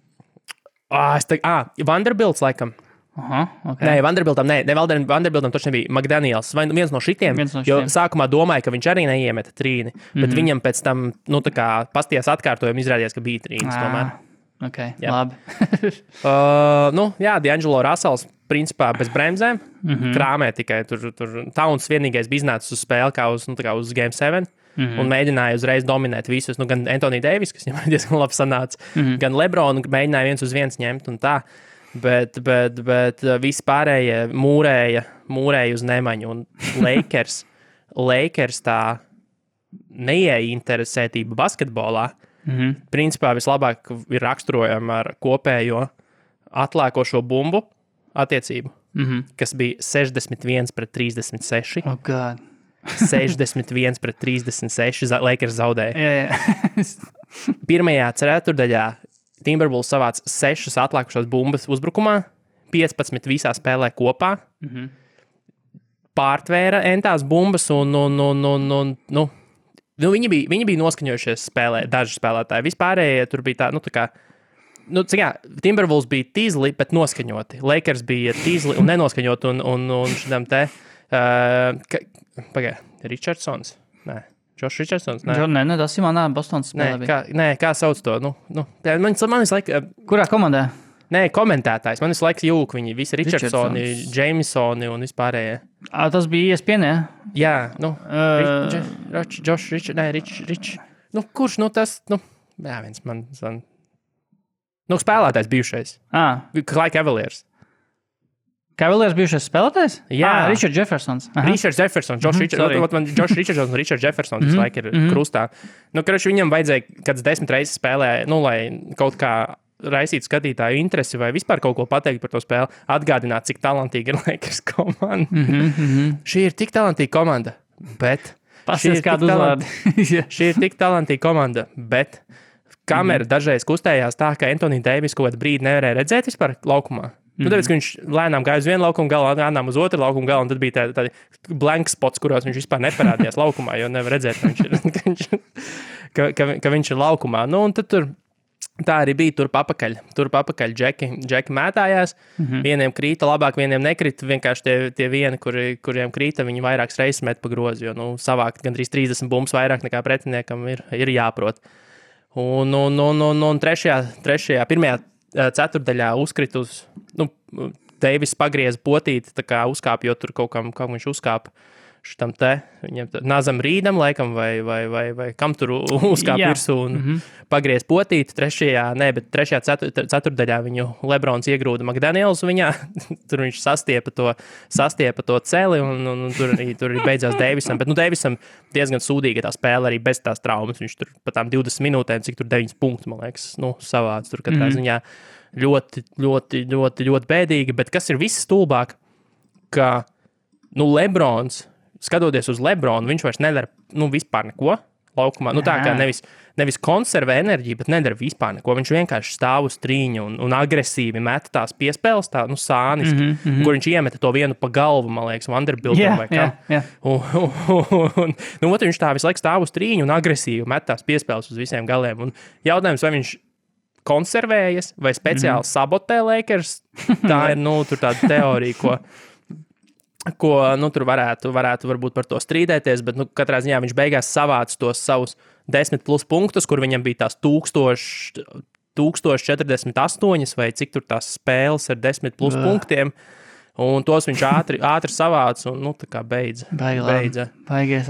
Vanderbilts laikam.
Okay.
Nē, Vanderbiltam taču nebija McDaniels. Vai viens no šitiem, jo sākumā domāju, ka viņš arī neiemeta trīni, bet viņam pēc tam, pastījās atkārtojumi izrādījās, ka bija trīnis tomēr.
Ok, labi.
D'Angelo Russells principā bez bremzēm, krāmē tikai tur Towns vienīgais bija iznācis uz spēli kā uz Game 7. Un mēģināja uzreiz dominēt visus, gan Anthony Davis, kas viņam diezgan labi sanāca, gan LeBron, mēģināja 1-1 ņemt un tā, bet visi pārējie mūrēja uz nemaņu, un Lakers tā neieinteresētība basketbolā, principā vislabāk ir raksturojama ar kopējo atlēkošo bumbu attiecību, kas bija 61-36.
Oh, God.
61-36, Lakers zaudēja. Pirmajā ceturdaļā Timberwolves savāca 6 atlikušās bumbas uzbrukumā, 15 visā spēlē kopā, pārtvēra entās bumbas viņi bija noskaņojušies spēlē, daži spēlētāji. Vispārējie tur bija Timberwolves bija tīzli, bet noskaņoti. Lakers bija tīzli un nenoskaņoti un šitam te... Richardsons? Nē. Josh Richardsons?
Nē, tas ir manā Bostonas spēlē bija.
Kā sauc to? Man visu laiku...
Kurā komandā?
Nē, komentētājs. Man visu laiku jūk viņi visi Richardsoni, Jamesoni un vispārējie.
Tas bija ESPN,
jā? Josh Rich. Kurš, tas... viens man... spēlētājs bijušais. Clyde Cavaliers.
Cavaliers bijušais spēlētājs?
Jā.
Richard Jeffersons.
Richard Jeffersons. Josh Richardsons un Richard Jeffersons visu laiku ir krustā. Viņam vajadzēja kāds 10 reizes spēlē, lai kaut kā raisītu skatītāju interesi vai vispār kaut ko pateikt par to spēli, atgādināt, cik talantīga ir Lakers komanda. Šī ir tik talantīga komanda, bet... Šī ir tik talantīga komanda, bet kamera dažreiz kustējās tā, ka Anthony Davis kaut kādu brīdi nevarēja redzēt vispār laukumā. Tāpēc, ka viņš lēnām gāja uz vienu laukumu galu, lēnām uz otru laukumu galu, un tad bija tādi blank spots, kuros viņš vispār neparādījās laukumā, jo nevar redzēt, ka viņš ir laukumā. Un tad tur tā arī bija turp apakaļ džeki mētājās. Vieniem krīta labāk, vieniem nekrita. Vienkārši tie vieni, kuriem krīta, viņi vairākas reizes met pa grozi, jo savākt gandrīz 30 bumbas vairāk nekā pretiniekam ir jāprot. Un pirmajā ceturdaļā uzkrit uz, Deivis pagrieza potīti, tā kā uzkāp, jo tur kaut kam viņš uzkāpa šitam te, viņam Nazam Rīdam laikam, vai kam tur uzkāp virsū un pagriez potīti. Trešajā ceturdaļā viņu Lebrons iegrūda McDaniels viņā, tur viņš sastiepa to celi un tur arī beidzās Deivisam, bet Deivisam diezgan sūdīga tā spēle arī bez tās traumas, viņš tur pa tām 20 minūtēm, cik tur 9 punktus, man liekas, savāds tur katrā ziņā ļoti, ļoti, ļoti, ļoti bēdīgi, bet kas ir viss stulbāk, ka, Lebrons, skatoties uz Lebronu, viņš vairs nedara, vispār neko laukumā. Tā kā nevis konservē enerģiju, bet nedara vispār neko. Viņš vienkārši stāv uz trīņa un agresīvi met tās piespēles, sāniski, kur viņš iemeta to vienu pa galvu, man liekas, Vanderbiltam vai kam. Viņš tā visu laiku stāv uz trīņa un agresīvi met tās piespēles uz visiem galiem. Un jautājums, vai viņš konservējas vai speciāli sabotē Lakers, tā ir, tur tāda teorija, ko tur varētu varbūt par to strīdēties, bet katrā ziņā viņš beigās savāca tos savus 10+ punktus, kur viņam bija tās 1048 vai cik tur tās spēles ar 10+ punktiem, Un tos viņš ātri savāca un, tā kā beidza.
Baigies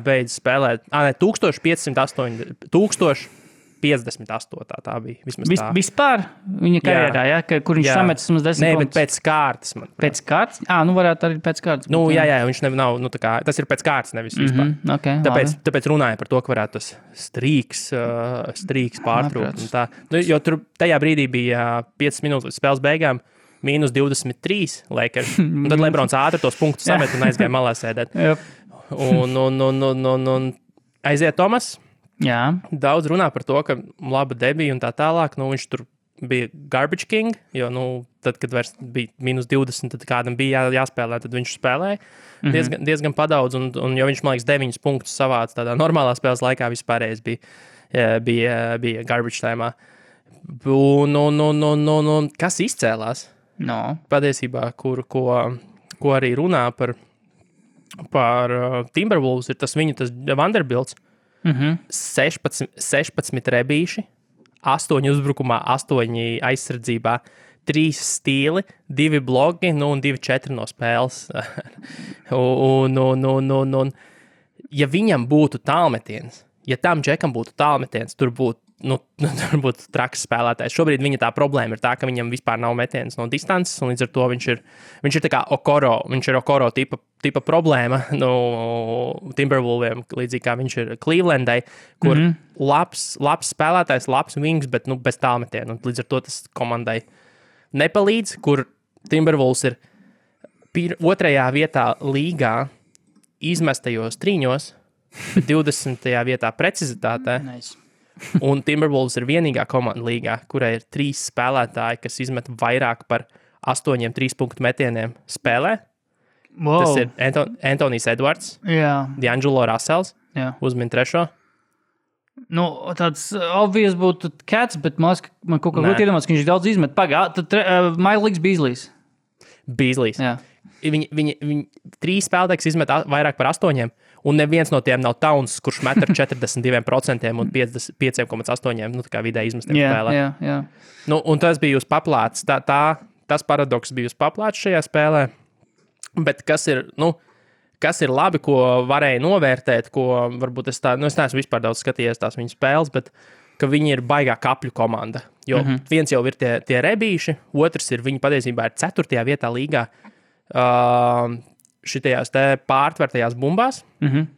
beidza spēlēt. 1558 tā bija.
Vispār viņa karjerā, kur viņš sametas mums 10 punktus?
Bet pēc kārtas.
Pēc kārtas? Varētu arī pēc kārtas.
Viņš nav, tas ir pēc kārtas, nevis vispār.
Okay,
tāpēc runāja par to, ka varētu tas strīks pārtrūkt. Jo tur tajā brīdī bija 5 minūtes līdz spēles beigām. -23 Lakers. Un tad Lebrons ātri tos punktus samet un aizgāja malā sēdēt. Un aiziet Tomas.
Jā.
Daudz runā par to, ka laba debija un tā tālāk. Viņš tur bija garbage king, jo, tad, kad vairs bija -20, tad kādam bija jāspēlē, tad viņš spēlēja diezgan padaudz. Un jo viņš, man liekas, 9 punktus savāca tādā normālā spēles laikā, vispārējais bija garbage tēmā. Un kas izcēlās? Patiesībā, ko arī runā par Timberwolves, ir tas Vanderbilts. 16 rebīši, 8 uzbrukumā, 8 aizsardzībā, 3 stīli, 2 blogi, un 2-4 no spēles. un ja viņam būtu tālmetiens, ja tam džekam būtu tālmetiens, tur būtu traks spēlētājs. Šobrīd viņa tā problēma ir tā, ka viņam vispār nav metiens no distances, un līdz ar to viņš ir tā kā Okoro, viņš ir Okoro tipa problēma, Timberwolviem, līdzīgi kā viņš ir Clevelandai, kur labs spēlētājs, labs wings, bet bez tālmetiena, un līdz ar to tas komandai nepalīdz, kur Timberwolves ir 2. vietā līgā izmestajos trīņos, bet 20. vietā precizitātē.
Nice.
Un Timberwolves ir vienīgā komanda līgā, kurai ir 3 spēlētāji, kas izmet vairāk par 8 3-punktu metieniem spēlē.
Wow.
Tas ir Anthony's Edwards, D'Angelo Russells, uzmin 3.
Tāds obvious būtu Cats, bet man kaut kā grūti iedomāties, ka viņš daudz izmet. Tad Miles Beasley. Jā. Viņi 3 spēlētājs izmet vairāk par 8, un neviens no tiem nav Towns, kurš met ar 42% un 5,8 tā kā vidē izmestiem spēlē. Jā.
Un tas bija uz paplāts. Tas paradoks bija uz paplāts šajā spēlē. Bet kas ir labi, ko varēja novērtēt, ko varbūt es neesmu vispār daudz skatījies tās viņu spēles, bet ka viņi ir baigā kapļu komanda. Jo viens jau ir tie rebīši, otrs ir viņi patiesībā ir 4. vietā līgā šitajās te pārtvertajās bumbās, 3.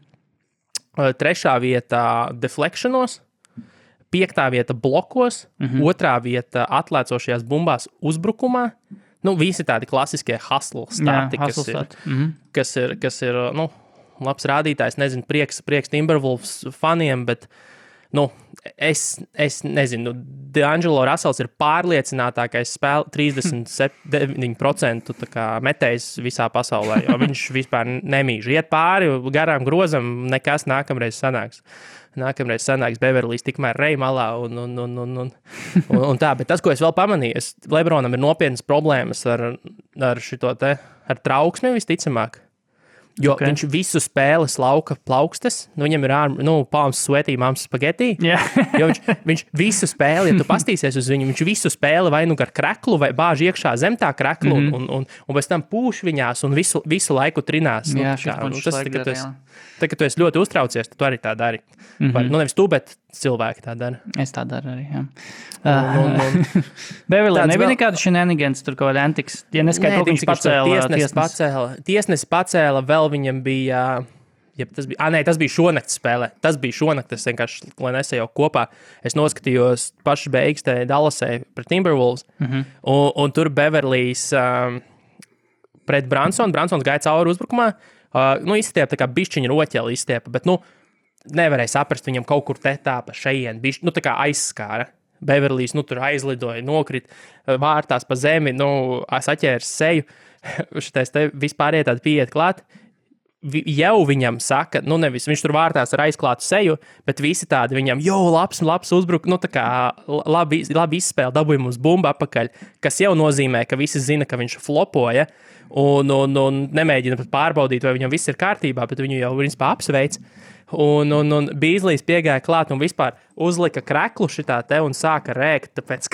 vietā deflectionos, 5. vieta blokos, 2. vieta atlēcošajās bumbās uzbrukumā. Visi tādi klasiskie hustle stati, kas ir labs rādītājs. Nezinu, prieks Timberwolves faniem, bet es nezinu, D'Angelo Russells ir pārliecinātākais 39% metējs visā pasaulē, jo viņš vispār nemīž. Iet pāri garām grozam, nekas nākamreiz sanāks. Beverlijs tikmēr rej malā un tā. Bet tas, ko es vēl pamanīju, Lebronam ir nopietnas problēmas ar trauksmi visticamāk. Jo viņš visu spēli lauka plaukstas, viņam ir palms sweatī, mams spageti. Jo viņš visu spēli, ja tu pastīsies uz viņu, viņš visu spēli vai ar kreklu, vai bāž iekšā zem tā kreklu, un pēc tam pūš viņās un visu laiku trinās. Tā, ka tu esi ļoti uztraucies, tu arī tā dari. Nevis tu, bet cilvēki tā dara.
Es tā daru arī, jā. Beverly, nebija nekāda shenanigans, tur kaut kāda antiks. Ja neskaita, viņš pacēla.
Tiesnesis pacēla, vēl viņam bija... tas bija šonakts spēlē. Tas bija šonakts, vienkārši, lai nesajau kopā. Es noskatījos pašas beigas te Dallasē pret Timberwolves, un tur Beverlys pret Bransons gāja cauri uzbrukumā. Izstiepa tā kā bišķiņa roķeli izstiepa, bet, nevarēja saprast, viņam kaut kur te tā pa šeien, tā kā aizskāra. Beverlys, tur aizlidoja, nokrit vārtās pa zemi, saķērs seju, šitais te vispār tādi pieiet klāt. Jau viņam saka, nevis viņš tur vārtās ar aizklātu seju, bet visi tādi viņam, labs uzbruk, tā kā labi izspēle, dabūja mums bumbu apakaļ, kas jau nozīmē, ka visi zina, ka viņš flopoja, un nemēģina pat pārbaudīt, vai viņam viss ir kārtībā, bet viņu jau principā apsveic. Un Beasley's piegāja klāt un vispār uzlika kreklu šitā te un sāka rēkt, tāpēc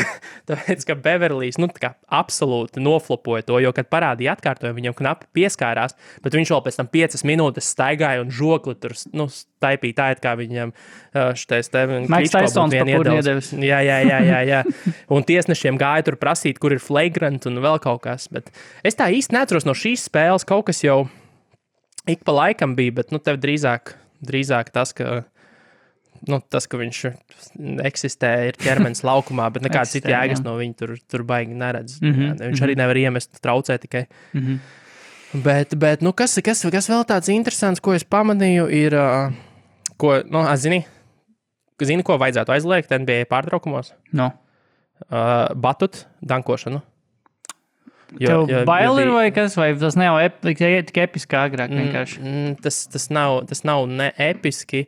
ka Beverlijs absolūti noflopoja to, jo, kad parādīja atkārtojumu, viņam knapi pieskārās, bet viņš vēl pēc tam 5 minūtes staigāja un žokli tur staipīja tā, kā viņam šitais te
Maiks Taisons papūri iedevis.
Jā. Un tiesnešiem gāja tur prasīt, kur ir flagrant un vēl kaut kas, bet es tā īsti neatceros no šīs spēles, kaut kas jau ik pa laikam bija, bet tev drīzāk tas, ka viņš eksistē, ir ķermenis laukumā, bet nekāds cits jēgas no viņa tur baigi neredz. Viņš arī nevar iemest, traucē tikai. Bet kas vēl tāds interesants, ko es pamanīju, ir, zini, ko vajadzētu aizliegt NBA pārtraukumos?
No.
Batut, dankošanu.
Tev bail ir vai kas, vai tas nav tik episki agrāk vienkārši?
Tas nav ne episki,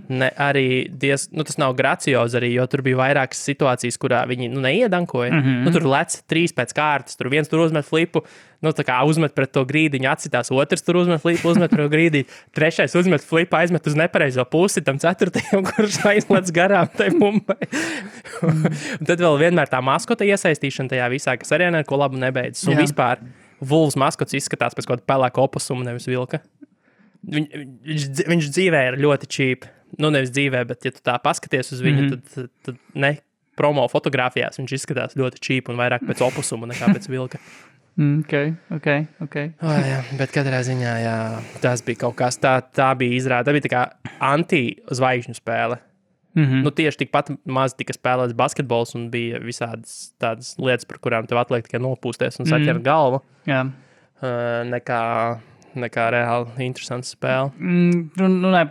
ne arī tas nav graciozi arī, jo tur bija vairākas situācijas, kurā viņi neiedankoja. Tur lec 3 pēc kārtas, tur viens tur uzmet flipu, tā kā uzmet pret to grīdiņu, atcitās, otrs tur uzmet flipu, uzmet pret to grīdiņu, trešais uzmet flipu, aizmet uz nepareizo pusi, tam ceturtajam, kurš aizlec garām tai bumbai. Un tad vēl vienmēr tā maskota iesaistīšana tajā visā, kas arī neko labu nebeidzas. Un vispār Wolves maskots izskatās pēc kaut kāda pelēka opusuma, nevis vilka. Viņš dzīvē ir ļoti cheap. Nevis dzīvē, bet ja tu tā paskaties uz viņu, tad ne promo fotogrāfijās viņš izskatās ļoti cheap un vairāk pēc opusuma nekā pēc vilka.
Ok.
Jā, bet katrā ziņā, jā, tas bija kaut kas, tā bija izrāda, tā bija tā kā anti-zvaigžņu spēle. Tieši tikpat maz tika spēlēts basketbols un bija visādas tādas lietas, par kurām tev atliek tikai nopūsties un saķert galvu.
Jā.
Nekā reāli interesants spēle.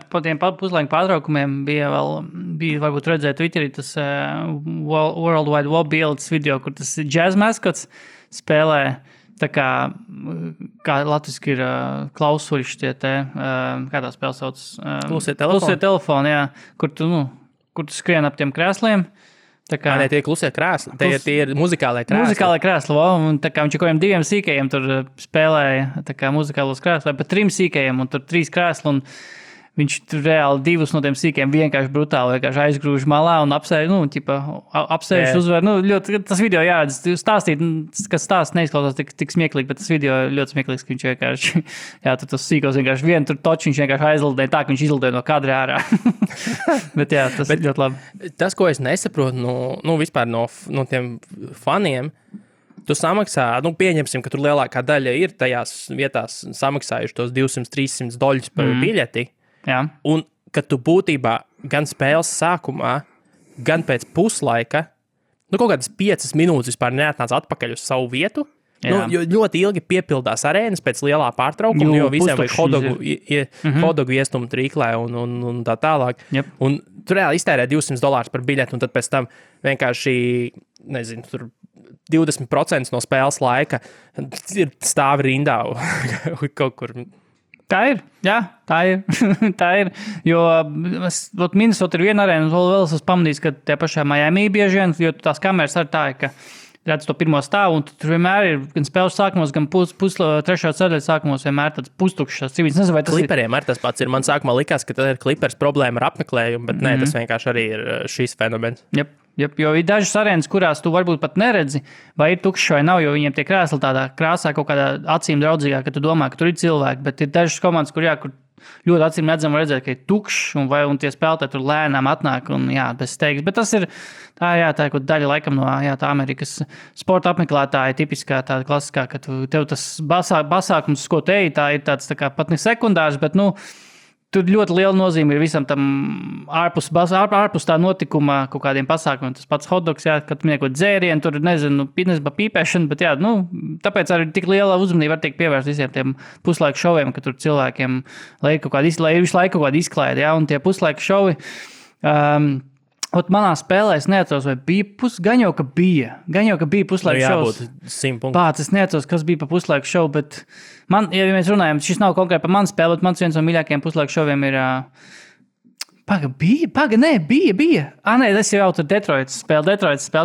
Pa tiem puslaika pārtraukumiem bija varbūt redzēt Twitterī tas World Wide Web bildes video, kur tas jazz maskots spēlē tā kā latviski ir klausuļš tie te, kā tā spēle sauc?
Klusie telefoni,
jā, kur tu skrien ap tiem krēsliem.
Ne, tie ir klusie krēsli, tie ir muzikālai krēsli.
Muzikālai krēsli, un tā kā viņš kaut kādiem 2 sīkajiem tur spēlēja tā kā muzikālos krēsli, vai pat 3 sīkajiem, un tur 3 krēsli, un viņš tur reāli 2 no tiem sīkiem vienkārši brutāli aizgrūž malā un apsēž uzvar. Ļoti, tas video jāredz, stāstīt, kas stāsts neizklausās tik smieklīgi, bet tas video ļoti smieklīgs, ka viņš vienkārši, tur tas sīkos vienkārši vienu tur toču, viņš vienkārši aizlidēja tā, ka viņš izlidēja no kadra ārā. Bet tas ir ļoti labi.
Tas, ko es nesaprotu, vispār no tiem faniem, tu samaksā, pieņemsim, ka tur lielākā daļa ir tajās vietās samaksājuši tos $200-300 par biļeti.
Jā.
Un, kad tu būtībā gan spēles sākumā, gan pēc puslaika, kaut kādas 5 minūtes vispār neatnāc atpakaļ uz savu vietu, jo ļoti ilgi piepildās arēnas pēc lielā pārtraukuma, jo visiem vajag hodogu iestumu trīklē un tā tālāk.
Yep.
Un tu reāli iztērē $200 par biļeti, un tad pēc tam vienkārši, nezinu, tur 20% no spēles laika ir stāvi rindā kaut kur.
Tā ir, tā ir, jo Minnesota ir viena arēna, un vēl esmu pamanījis, ka tie pašā Miami bieži vien, jo tās kameras arī tā ir, ka redz to pirmo stāvu, un tur vienmēr ir gan spēles sākumos, gan trešā ceļa sākumos vienmēr tāds pustukšs civils. Nezinu, vai tas
Kliperiem arī tas pats ir. Man sākumā likās, ka tad ir Klipers problēma ar apmeklējumu, bet nē, tas vienkārši arī ir šīs fenomens.
Jo ir dažas arēnas, kurās tu varbūt pat neredzi, vai ir tukšs vai nav, jo viņiem tie krēsli tādā krāsā kaut kādā acīm draudzīgā, ka tu domā, ka tur ir cilvēki, bet ir dažas komandas, kur ļoti acīm redzam redzēt, ka ir tukšs un tie spēlētāji tur lēnām atnāk un bez steigas. Bet tas ir tā ir kaut daļa laikam no tā Amerikas sporta apmeklētāja tipiskā tāda klasiskā, ka tev tas pasākums, ko te tā ir tāds tā kā pat ne sekundārs, bet tur ļoti liela nozīme ir visam tam ārpus tā notikuma kaut kādiem pasākumiem. Tas pats hotdogs, kad kaut dzērienu, tur nezinu, pīpēšana, bet tāpēc arī tik liela uzmanība var tiek pievērst visiem tiem puslaiku šoviem, ka tur cilvēkiem lai visu laiku kaut kāda izklaide, un tie puslaiku šovi. Manā spēlē es neatceros, vai bija gan jau, ka bija puslaiku šovs. Pats, es neatceros, kas bija pa puslaiku šovu, bet man, ja mēs runājam, šis nav konkrēti par manu spēli, bet mans viens no mīļākajiem puslaiku šoviem ir Bija. Nē, tas jau tur Detroitas spēle,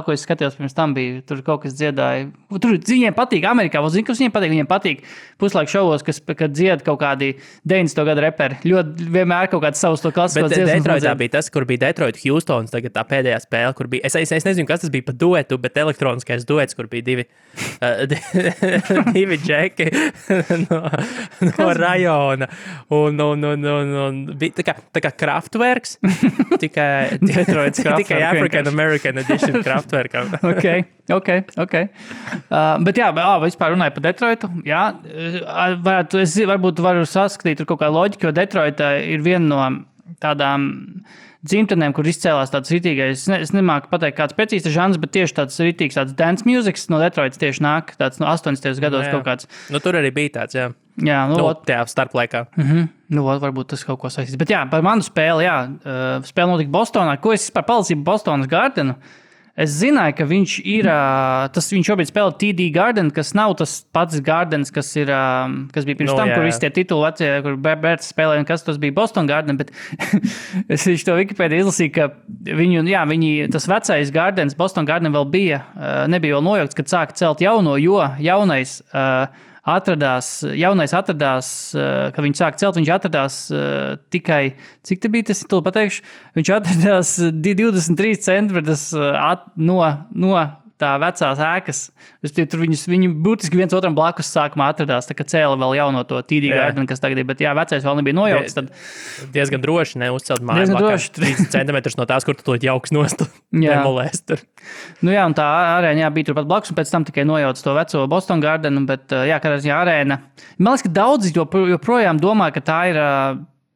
ko es skatījos pirms tam bija. Tur kaut kas dziedāja. Tur viņiem patīk Amerikā. Zinu, kas viņiem patīk. Viņiem patīk puslaiku šovos, kad dzied kaut kādi 90. gadu reperi. Ļoti vienmēr kaut kāds savus to klasisko dziesmu.
Bet Detroitā bija tas, kur bija Detroit Houstons, tagad tā pēdējā spēle, kur bija. Es nezinu, kas tas bija pa duetu, bet elektroniskais duets, kur bija divi džeki no rajona. Un bija tā kā Kraftwerk. Tikai African American edition Kraftwerkam.
Ok. Bet jā, vispār runāju par Detroitu. Jā, varbūt varu saskatīt tur kaut kā loģika, jo Detroita ir viena no tādām dzimtenēm, kur izcēlās tāds ritīgais, es nemāku pateikt kāds precīzs žanrs, bet tieši tāds ritīgs tāds dance musics no Detroitas tieši nāk, tāds no 80. gados kaut kāds.
Nu, tur arī bija tāds, jā.
Jā,
tajā starplaikā.
Varbūt tas kaut ko saistīs. Bet jā, par manu spēli, spēle notika Bostonā. Ko es par palicību Bostonas Gardenu? Es zināju, ka viņš ir, viņš šobrīd spēlē TD Garden, kas nav tas pats Gardens, kas bija pirms tam, kur visi tie tituli vecie, kur Bērts spēlēja, un kas tas bija Boston Garden, bet es to Wikipēdiju izlasīju, ka tas vecais Gardens, Boston Garden vēl nebija vēl nojaukts, kad sāka celt jauno, jo jaunais atradās, kad viņš sāka celt, viņš atradās tikai, cik te bija tas, tu pateikšu, viņš atradās 23 centimetrus no tā vecās ēkas. Tur viņi būtiski viens otram blakus sākumā atradās, tā kā cēla vēl jauno to TD Garden, kas tagad ir, bet vecais vēl nebija nojaukts. Tad
diezgan droši neuzcelt māju blakā 30 centimetrus no tās, kur tu to jauks nost demolēs tur.
Nu jā, un tā arēna bija turpat blakus, un pēc tam tikai nojauc to veco Boston Gardenu, bet kādā arēna. Man liekas, ka daudzi joprojām domā, ka tā ir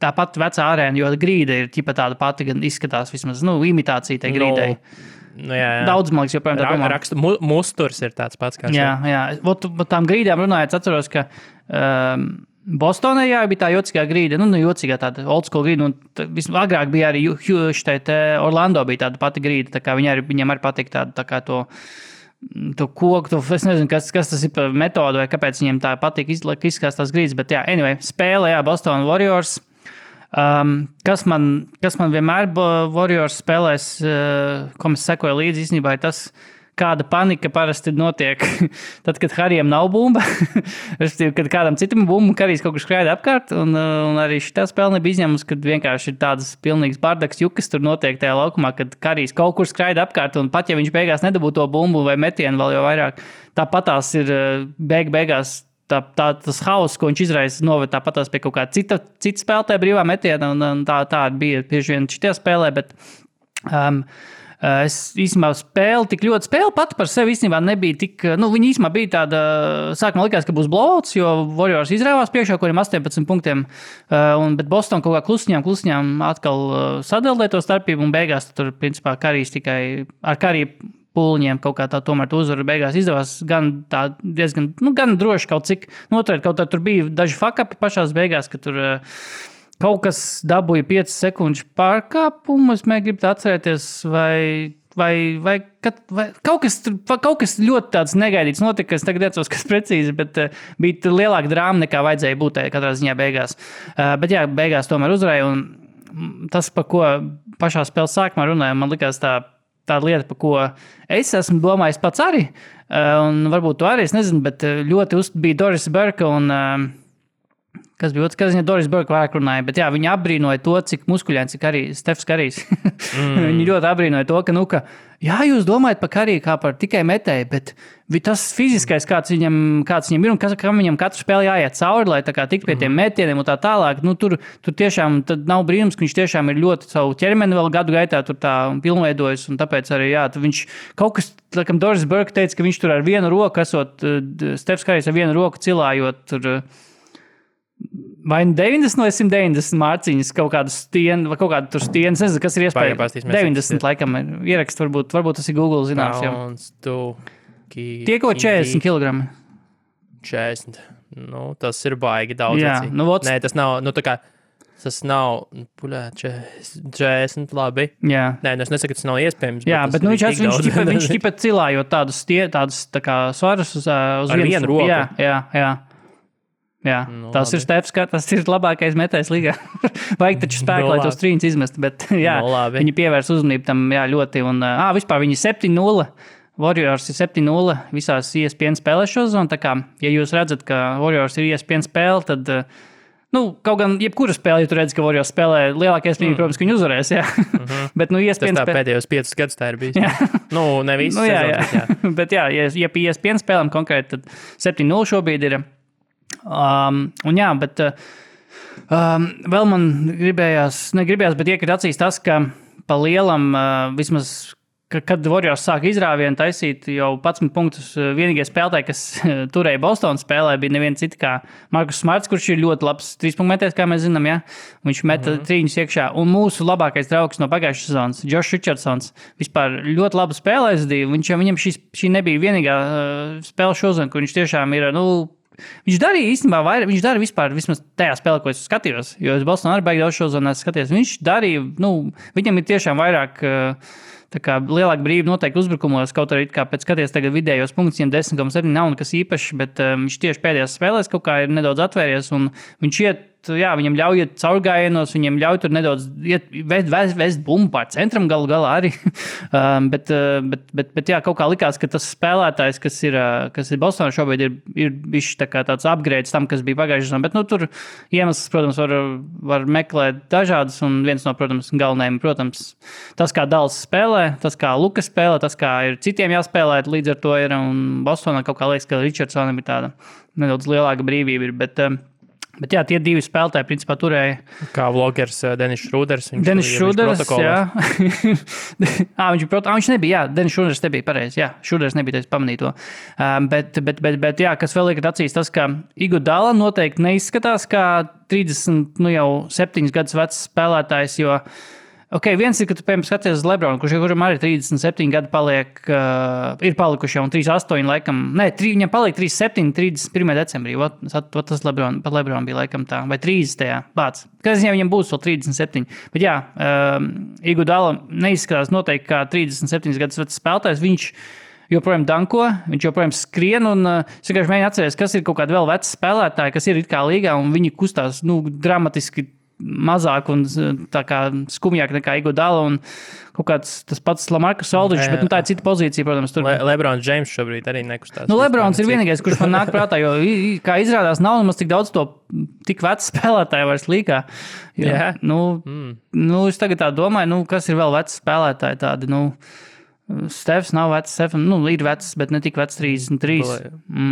tā pati vecā arēna, jo grīda ir ķipa tāda pati, gan izskatās vismaz, imitācija tai grīdai.
Jā.
Daudz, man liekas, joprojām tā domā.
Raksta musturs ir tāds pats kā
šeit. Jā. Tām grīdām runājot, atceros, ka Bostonā bija tā jocīgā grīda, jocīgā tāda old school grīda, un agrāk bija arī Orlando bija tāda pati grīda, tā kā viņiem arī patīk tā kā to koku, es nezinu, kas tas ir par metodu, vai kāpēc viņiem tā patīk izskatās tās grīdas, bet anyway, spēle, Boston Warriors. Kas man vienmēr Warriors spēlēs, ko mēs sekoju līdzi, īstenībā ir tas, kāda panika parasti notiek tad, kad Harijam nav bumba. Respektīvi, kad kādam citam bumba, Harijs kaut kur skraida apkārt, un arī šitā spēle nebija izņēmums, kad vienkārši ir tādas pilnīgas bardaks jukas tur notiek tajā laukumā, kad Harijs kaut kur skraida apkārt, un pat ja viņš beigās nedabū to bumbu vai metienu vēl jau vairāk, tāpatās ir beigās tas hauss, ko viņš izraisa, noved tāpatās pie kaut kāda cita spēlētāja brīvā metiena, un tā bija bieži vien šitajā spēlē, bet es īstenībā spēle pati par sevi īstenībā nebija tik, viņa īstenībā bija tāda, sākumā likās, ka būs blowouts, jo Warriors izrāvās priekšā, kuriem 18 punktiem, bet Boston kaut kā klusiņām atkal sadaldē to starpību, un beigās tur, principā, Karijs tikai ar Kariju pūliņiem kaut kā tā tomēr uzvaru beigās izdevās gan tā diezgan, gan droši kaut cik noturēt, kaut tā tur bija daži fuck-upi pašās beigās, ka tur kaut kas dabūja 5 sekundžu pārkāpumu, es gribu atcerēties, vai kaut kas ļoti tāds negaidīts notika, es tagad atceros, kas precīzi, bet bija lielāka drāma nekā vajadzēja būt katrā ziņā beigās. Bet beigās tomēr uzvarēja, un tas, par ko pašā spēles sākumā runāja, man likās tā lieta, par ko es esmu domājis pats arī, un varbūt to arī, es nezinu, bet ļoti bija Doris Burke un, kas bija otrs, kas viņa Doris Burke vairāk runāja, bet viņi apbrīnoja to, cik muskuļains ir Stefs Karijs. Viņi ļoti apbrīnoja to, ka, jūs domājat par Kariju kā par tikai metēju, bet tas fiziskais, kāds viņam ir un kam viņam katru spēli jāiet cauri, lai tā kā tik pie tiem metieniem un tā tālāk, tur tiešām tad nav brīnums, ka viņš tiešām ir ļoti savu ķermeni vēl gadu gaitā tur tā pilnveidojis, un tāpēc arī, viņš kaut kas, laikam Doris Burke teica, ka viņš tur ar vienu roku, esot Stefs Karijs ar vienu roku cilājot tur vai 90 vai 190 mārciņas, kaut kādu stienu, vai kaut kādu tur stienu, es nezinu, kas ir iespējams. 90 laikam ir ierakst, varbūt tas ir Google zināms. Tie kaut 40 kilogrami.
40. Tas ir baigi daudz. Nē, tas nav, tas nav, 40 labi. Jā. Nē, es nesaku, ka tas nav iespējams.
Jā, bet viņš tipa cilājot tādus tā kā svarus uz vienu roku. Jā. Jā, tas ir Stefs, tas ir labākais metējs līgā. Vajag taču spēku, lai tos trīņus izmest, bet jā, viņi pievērs uzmanību tam ļoti. Un vispār viņi 7-0, Warriors ir 7-0 visās ESPN spēlēs šo zonu. Tā kā, ja jūs redzat, ka Warriors ir ESPN spēle, tad, kaut gan jebkura spēle, ja tu redzi, ka Warriors spēlē lielākais brīdī, protams, ka viņi uzvarēs, jā. Bet, ESPN
tas tā pēdējos 5 gadus tā ir bijis. Ne visu
sezonas, jā. Bet jā, ja pie ESPN spēlēm konkrēti, tad 7-0 šobrīd ir. Bet vēl man negribējās, bet iekrīt acīs tas, ka pa lielam vismaz, kad Warriors sāka izrāvienu taisīt jau 11 punktus, vienīgie spēlētāji, kas turēja Bostonas spēlē, bija neviens cits kā Markus Smarts, kurš ir ļoti labs 3-punktu, kā mēs zinām, ja? Viņš meta trīņus iekšā. Un mūsu labākais draugs no pagājušās sezonas, Josh Richardsons, vispār ļoti labu spēli aizdīja. Viņam šī nebija vienīgā spēle šodien, kur viņš tiešām ir, viņš darīja īstenībā vairāk, viņš darīja vispār, vismaz tajā spēlē, ko es skatījos, jo es Bostonā arī baigi daudz šo zonu skatījos. Viņš darīja, viņam ir tiešām vairāk, tā kā lielāka brīva noteikti uzbrukumos, kaut arī kā pēc skaties tagad vidējos punktus, viņam 10,7 nav nekas īpašs, bet viņš tieši pēdējās spēlēs kaut kā ir nedaudz atvērties un viņš viņam ļauj iet caurgājienos, viņam ļauj tur nedaudz vest bumbu pār centram galā arī. bet jā, kaut kā likās, ka tas spēlētājs, kas ir Bostonā šobrīd, ir bišķi tā kā tāds upgrades tam, kas bija pagājušajā sezonā. Bet tur iemesls, protams, var meklēt dažādas, un viens no, protams, galvenajiem, protams, tas, kā Dallas spēlē, tas, kā Lukas spēlē, tas, kā ir citiem jāspēlē, līdz ar to ir, un Bostonā kaut kā liekas, ka Richardsonam ir tāda nedaudz lielāka brīvība ir, Bet jā, tie divi spēlētāji principā turēja.
Kā vlogers Denis Šrūders.
Denis Šrūders, jā. Viņš nebija, jā. Denis Šrūders nebija pareizi, jā. Šrūders nebija, es pamanīju to. Bet jā, kas vēl liekat acīs, tas, ka Iguodala noteikti neizskatās kā jau 7 gadus vecs spēlētājs, jo viens ir, ka tu, piemēram, skaties uz Lebronu, kuram arī 37 gadi ir palikuši jau un 38 laikam, viņam paliek 37, 31. decembrī, tas pat Lebronu bija laikam tā, vai 30. Bāc. Kas viņam būs vēl 37. Bet jā, Iguodala neizskatās noteikti kā 37 gadus vecs spēlētājs, viņš joprojām danko, viņš joprojām skrien, un es vienkārši mēģinu atcerēties, kas ir kaut kādi vēl veci spēlētāji, kas ir it kā līgā, un viņi kustās, dramatiski mazāk un tā kā skumjāk nekā Iguodala un kaut kāds tas pats Lamarcus Aldridge, bet tā ir cita pozīcija, protams. Tur.
Lebrons James šobrīd arī nekustās.
Lebrons ir vienīgais, kurš man nāk prātā, jo, kā izrādās, nav nemaz tik daudz to tik vecu spēlētāju vairs līgā.
Jā.
Es tagad tā domāju, kas ir vēl veci spēlētāji tādi, Stefs nav vecs, ir vecs, bet ne tik vecs 33.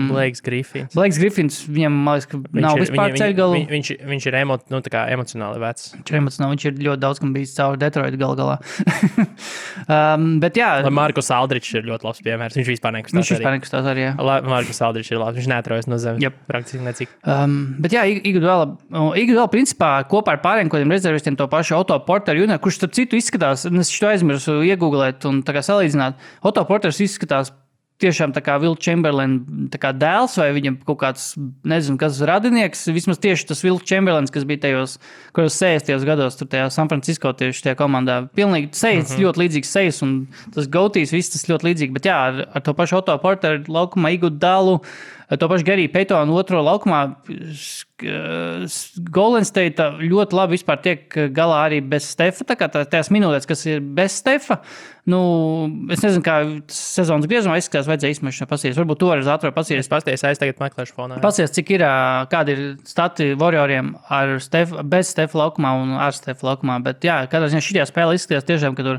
Blakes Griffins.
Blakes Griffins, viņam, man liekas, ka nav vispār ceļgalu.
Viņš ir emocionāli vecs.
Viņš ir ļoti daudz, kam bijis cauri Detroit galā. Bet jā.
Markus Aldridge ir ļoti labs piemērs. Viņš vispār nekustās
arī, jā.
Markus Aldridge ir labs. Viņš neatrojas no zemes. Praktiski necik.
Bet jā, Iguodala principā kopā ar pārējiem kodiem rezervistiem to pašu Otto Porteru Jr., kurš starp citu izskatās, es šo aizmirsu iegooglēt un tā kā Otto Porters izskatās tiešām tā kā Will Chamberlain tā kā dēls vai viņam kaut kāds, nezinu, kas radinieks, vismaz tieši tas Will Chamberlains, kas bija tajos 60. gados, tur tajā San Francisco tieši tajā komandā. Pilnīgi sejas, ļoti līdzīgs sejas un tas gautīs, viss tas ļoti līdzīgi, bet jā, ar to pašu Otto Porteru laukumā Iguodalu, to pašu Gary Paytonu otro laukumā Golden State ļoti labi vispār tiek galā arī bez Stefa, tā kā tās minūtes, kas ir bez Stefa, es nezinu, kā sezonas griezumā izskatās, vajadzēja izmešana pasīties. Varbūt to arī ātrāk pasīties.
Es pasties, tagad meklēšu fonā.
Pasīties, cik ir, kādi ir stati Warrioriem bez Stefa laukumā un ar Stefa laukumā, bet jā, kādā ziņā šitajā spēlē izskatās tiešām, ka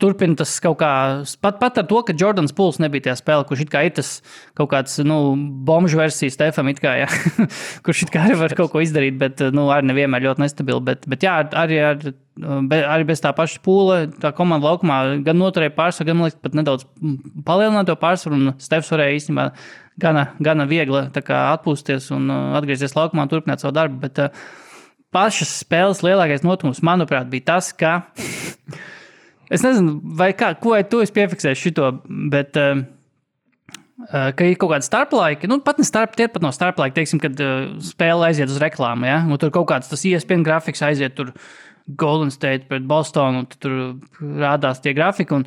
turpina tas kaut kā, pat ar to, ka Jordans Pools nebija tajā spēlē, kurš it kā ir tas kaut kāds, bomžu versija Stefam it kā, jā, kurš it kā arī var kaut ko izdarīt, bet, arī nevienmēr ļoti nestabili, bet jā, arī bez tā paša Poola, tā komanda laukumā gan noturēja pārsvaru, gan, man liekas, pat nedaudz palielināja to pārsvaru, un Stefs varēja īstenībā gana viegli tā kā atpūsties un atgriezties laukumā un turpināt savu darbu, bet pašas spēles lielākais notikums, manuprāt, bija tas, ka es nezinu, ko tu esi piefiksējis šito, bet ka ir kaut kādi starplaiki, pat no starplaiki, teiksim, kad spēle aiziet uz reklāmu, ja? Tur kaut kāds tas ESPN grafiks aiziet tur Golden State pret Bostonu, un tur rādās tie grafiki, un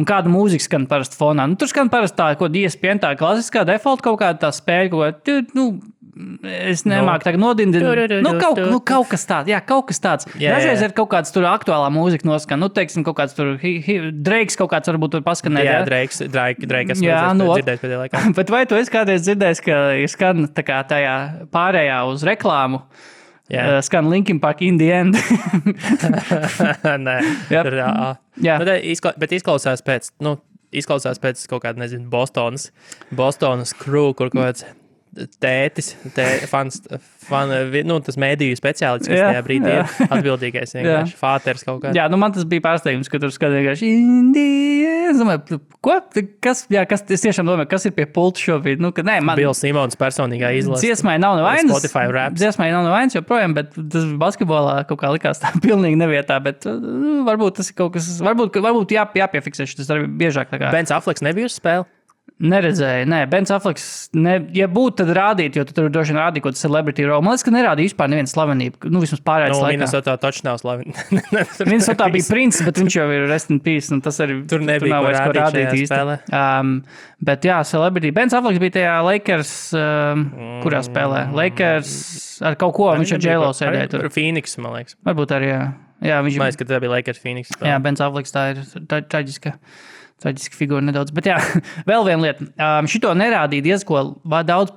kāda mūzika skan parasti fonā. Nu, tur skan parasti tā, ko ESPN, tā klasiskā default kaut kāda tā spēļa, es nemāku tagad nodindināt. Kaut kas tāds. Jā, kaut kas tāds. Dažreiz ir kaut kāds tur aktuālā mūzika noskan. Nu, teiksim, kaut kāds tur Drakes kaut kāds varbūt tur paskanēt.
Jā, Drakes dzirdējis pēdējā laikā.
Bet vai tu esi kādreiz dzirdējis, ka ir skan tā kā tajā pārējā uz reklāmu? Skan Linkin Park in the end.
Nē. Bet izklausās pēc kaut kāda, nezinu, Bostonas crew, kur kaut kāds tētis, tas mēdīju speciālists, kas tajā brīdī ir atbildīgais, vienkārši fāters kaut kāds.
Jā, man tas bija pārsteigums, ka tur skan vienkārši Indija. Es domāju, ko? Kas, es tiešām domāju, kas ir pie pulta šobrīd?
Bills Simons personīgā izlase.
Dziesmai nav nevainas.
Spotify raps.
Dziesmai nav nevainas joprojām, bet tas basketbolā kaut kā likās tā pilnīgi nevietā, bet varbūt tas ir kaut kas, varbūt jāpiefiksē šis arī biežāk tā kā.
Bens Afflecks nebija uz spēli?
Neredzēju, nē. Bens Afflecks, ja būtu, tad rādīt, jo tu tur droši vien rādīja kaut kādu celebrity role. Man liekas, ka nerādīja vispār nevienu slavenību. Vismaz pārējais laikā.
Minnesotā taču nav slavenība.
Minnesotā bija princis, bet viņš jau ir rest in peace, un tas arī
tur nebija
ko rādīt īsti. Bet jā, celebrity. Bens Afflecks bija tajā Lakers, kurā spēlē. Lakers ar kaut ko, viņš ar J-Lo sēdēja tur.
Phoenix, man liekas.
Varbūt arī, jā.
Man liekas, ka tā bija Lakers Phoenix spēlē.
Jā, Bens Afflecks tā ir traģiska figūra nedaudz. Bet jā, vēl viena lieta. Šito nerādīja diezko daudz,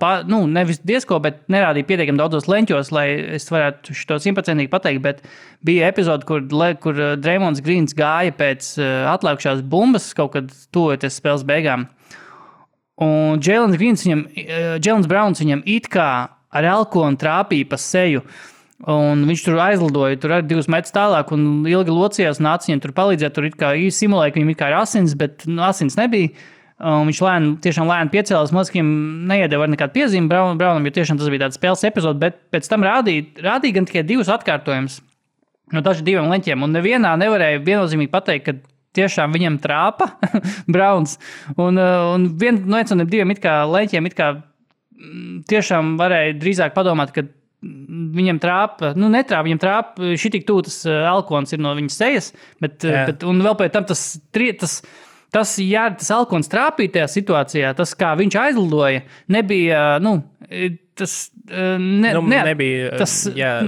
nevis diezko, bet nerādīja pietiekami daudzos leņķos, lai es varētu šito simtprocentīgi pateikt, bet bija epizode, kur Draymonds Greens gāja pēc atlikušās bumbas kaut kad tuvojoties spēles beigām. Un Jaylen Browns viņam it kā ar elkonu trāpīja pa seju. Un viņš tur aizlidoja, tur arī 2 metrus tālāk un ilgi locījās un nāca viņam tur palīdzēt. Tur it kā simulēja, ka viņam it kā ir asins, bet asins nebija. Viņš tiešām lēni piecēlās, mazkiem neiedeva nekādu piezīmi Brownam, jo tiešām tas bija tāds spēles epizode, bet pēc tam rādīja gan tikai 2 atkārtojumus no daži 2 leņķiem. Un nevienā nevarēja viennozīmīgi pateikt, ka tiešām viņam trāpa Browns. Un viens no 2 it kā leņķiem it kā tiešām varēja drīzāk padomāt, ka viņam trāpa, viņam trāpa, šitik tūtas alkons ir no viņas sejas, bet un vēl pēc tam tas alkons trāpīja tajā situācijā, tas, kā viņš aizlidoja, nebija,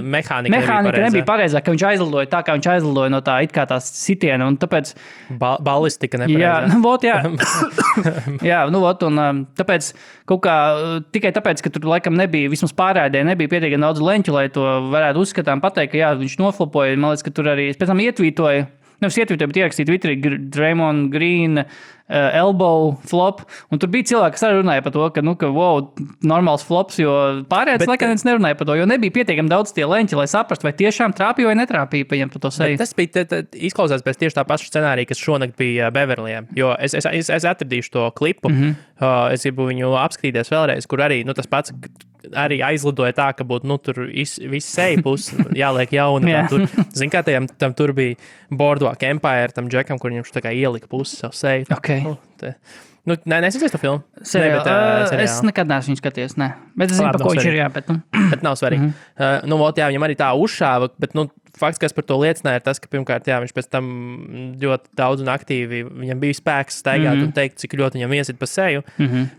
mehānika nebija pareizā, ka viņš aizlidoja tā, kā viņš aizlidoja no tā, it kā tās sitiena, un tāpēc...
Ballistika nepareizā.
Jā, un tāpēc kaut kā, tikai tāpēc, ka tur laikam nebija, vismaz pārēdē, nebija pietiekami daudz leņķu, lai to varētu uzskatām pateikt, ka jā, viņš noflopoja, man liekas, ka tur arī, pēc tam ietvītoja, nevis ietvītoja, bet ierakstīja Twitterī Draymond Green, elbow flop, un tur bija cilvēki, kas arī runāja par to, ka normāls flops, jo pārējais laikam neviens nerunāja par to, jo nebija pietiekami daudz tie leņķi, lai saprastu, vai tiešām trāpīja vai netrāpīja pa viņam pa to seju.
Tas bija izklausās pēc tieši tā paša scenārija, kas šonakt bija Beverlijā, jo es atradīšu to klipu, es gribu viņu apskatīties vēlreiz, kur arī tas pats arī aizlidoja tā, ka būtu tur viss seja puses jāliek jauna. Zin kā tam tur bija Boardwalk Empire, tam džekam, kur viņš tā kā ielika puses savu seju.
Okay.
Nesacies to filmu?
Es nekad neesmu viņu skaties, ne. Bet es zinu, pa ko viņš ir, jā, bet
Bet nav svarīgi. Viņam arī tā uzšāva, bet fakts, kas par to liecināja, ir tas, ka pirmkārt, jā, viņš pēc tam ļoti daudz un aktīvi, viņam bija spēks staigāt un teikt, cik ļoti viņam iesit pa seju.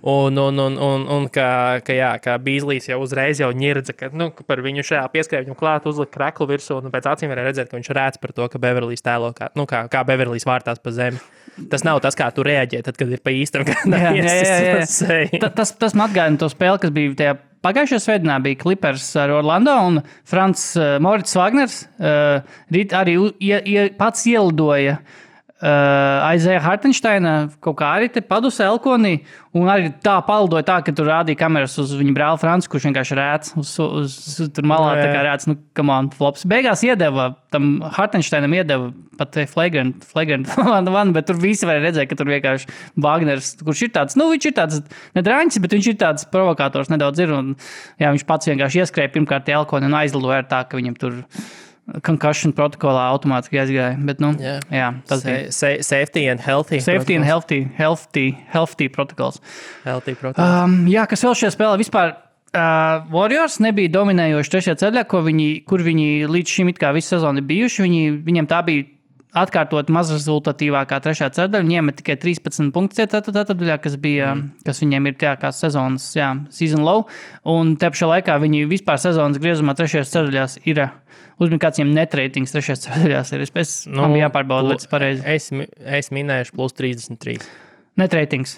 Un ka Beaslejs jau uzreiz jau ņirdza, ka par viņu šajā pieskrēja viņam klāt, uzlika kreklu virsū, un pēc acīm varēja redzēt, ka viņš rēc par to, ka Beverlijs tēlo, kā Beverlijs vārtās pa zemi. Tas nav tas, kā tu reaģē, tad, kad ir pa īstam,
Tas man atgādina to spēli, kas bija tajā pagājušajā svētdienā, bija Clippers ar Orlando, un Moritz Wagners arī pats ielidoja Isaiah Hartensteina kaut kā arī te padusē elkonī, un arī tā palidoja tā, ka tur rādīja kameras uz viņa brāli Franci, kurš vienkārši rēc uz tur malā, tā kā rēc, come on, flops. Beigās tam Hartensteinam iedeva pat flagrant one, bet tur visi varēja redzēt, ka tur vienkārši Wagners, kurš ir tāds, viņš ir tāds nedraņķis, bet viņš ir tāds provokators nedaudz ir, un jā, viņš pats vienkārši ieskrēja pirmkārt elkoni un aizlidoja ar tā, ka viņam tur concussion protokolā automātiski aizgāja, bet jā, tas bija.
Safety and healthy.
Safety and healthy protocols.
Healthy protocols.
Jā, kas vēl šajā spēlē vispār Warriors nebija dominējoši trešajā ceļā, kur viņi līdz šim it kā visu sezonu ir bijuši. Viņiem tā bija atkārtot mazrezultatīvākā trešā ceļa. Viņi iemet tikai 13 punktus ceturtajā, kas viņiem ir tā kā sezonas season low. Un te pašā laikā viņi vispār sezonas griezumā trešajās ceļās ir uzmanīgi kāds viņiem net ratings trešajās ceļās ir. Man bija jāpārbauda, lai tas pareizi.
Es minēšu plus 33.
Net ratings.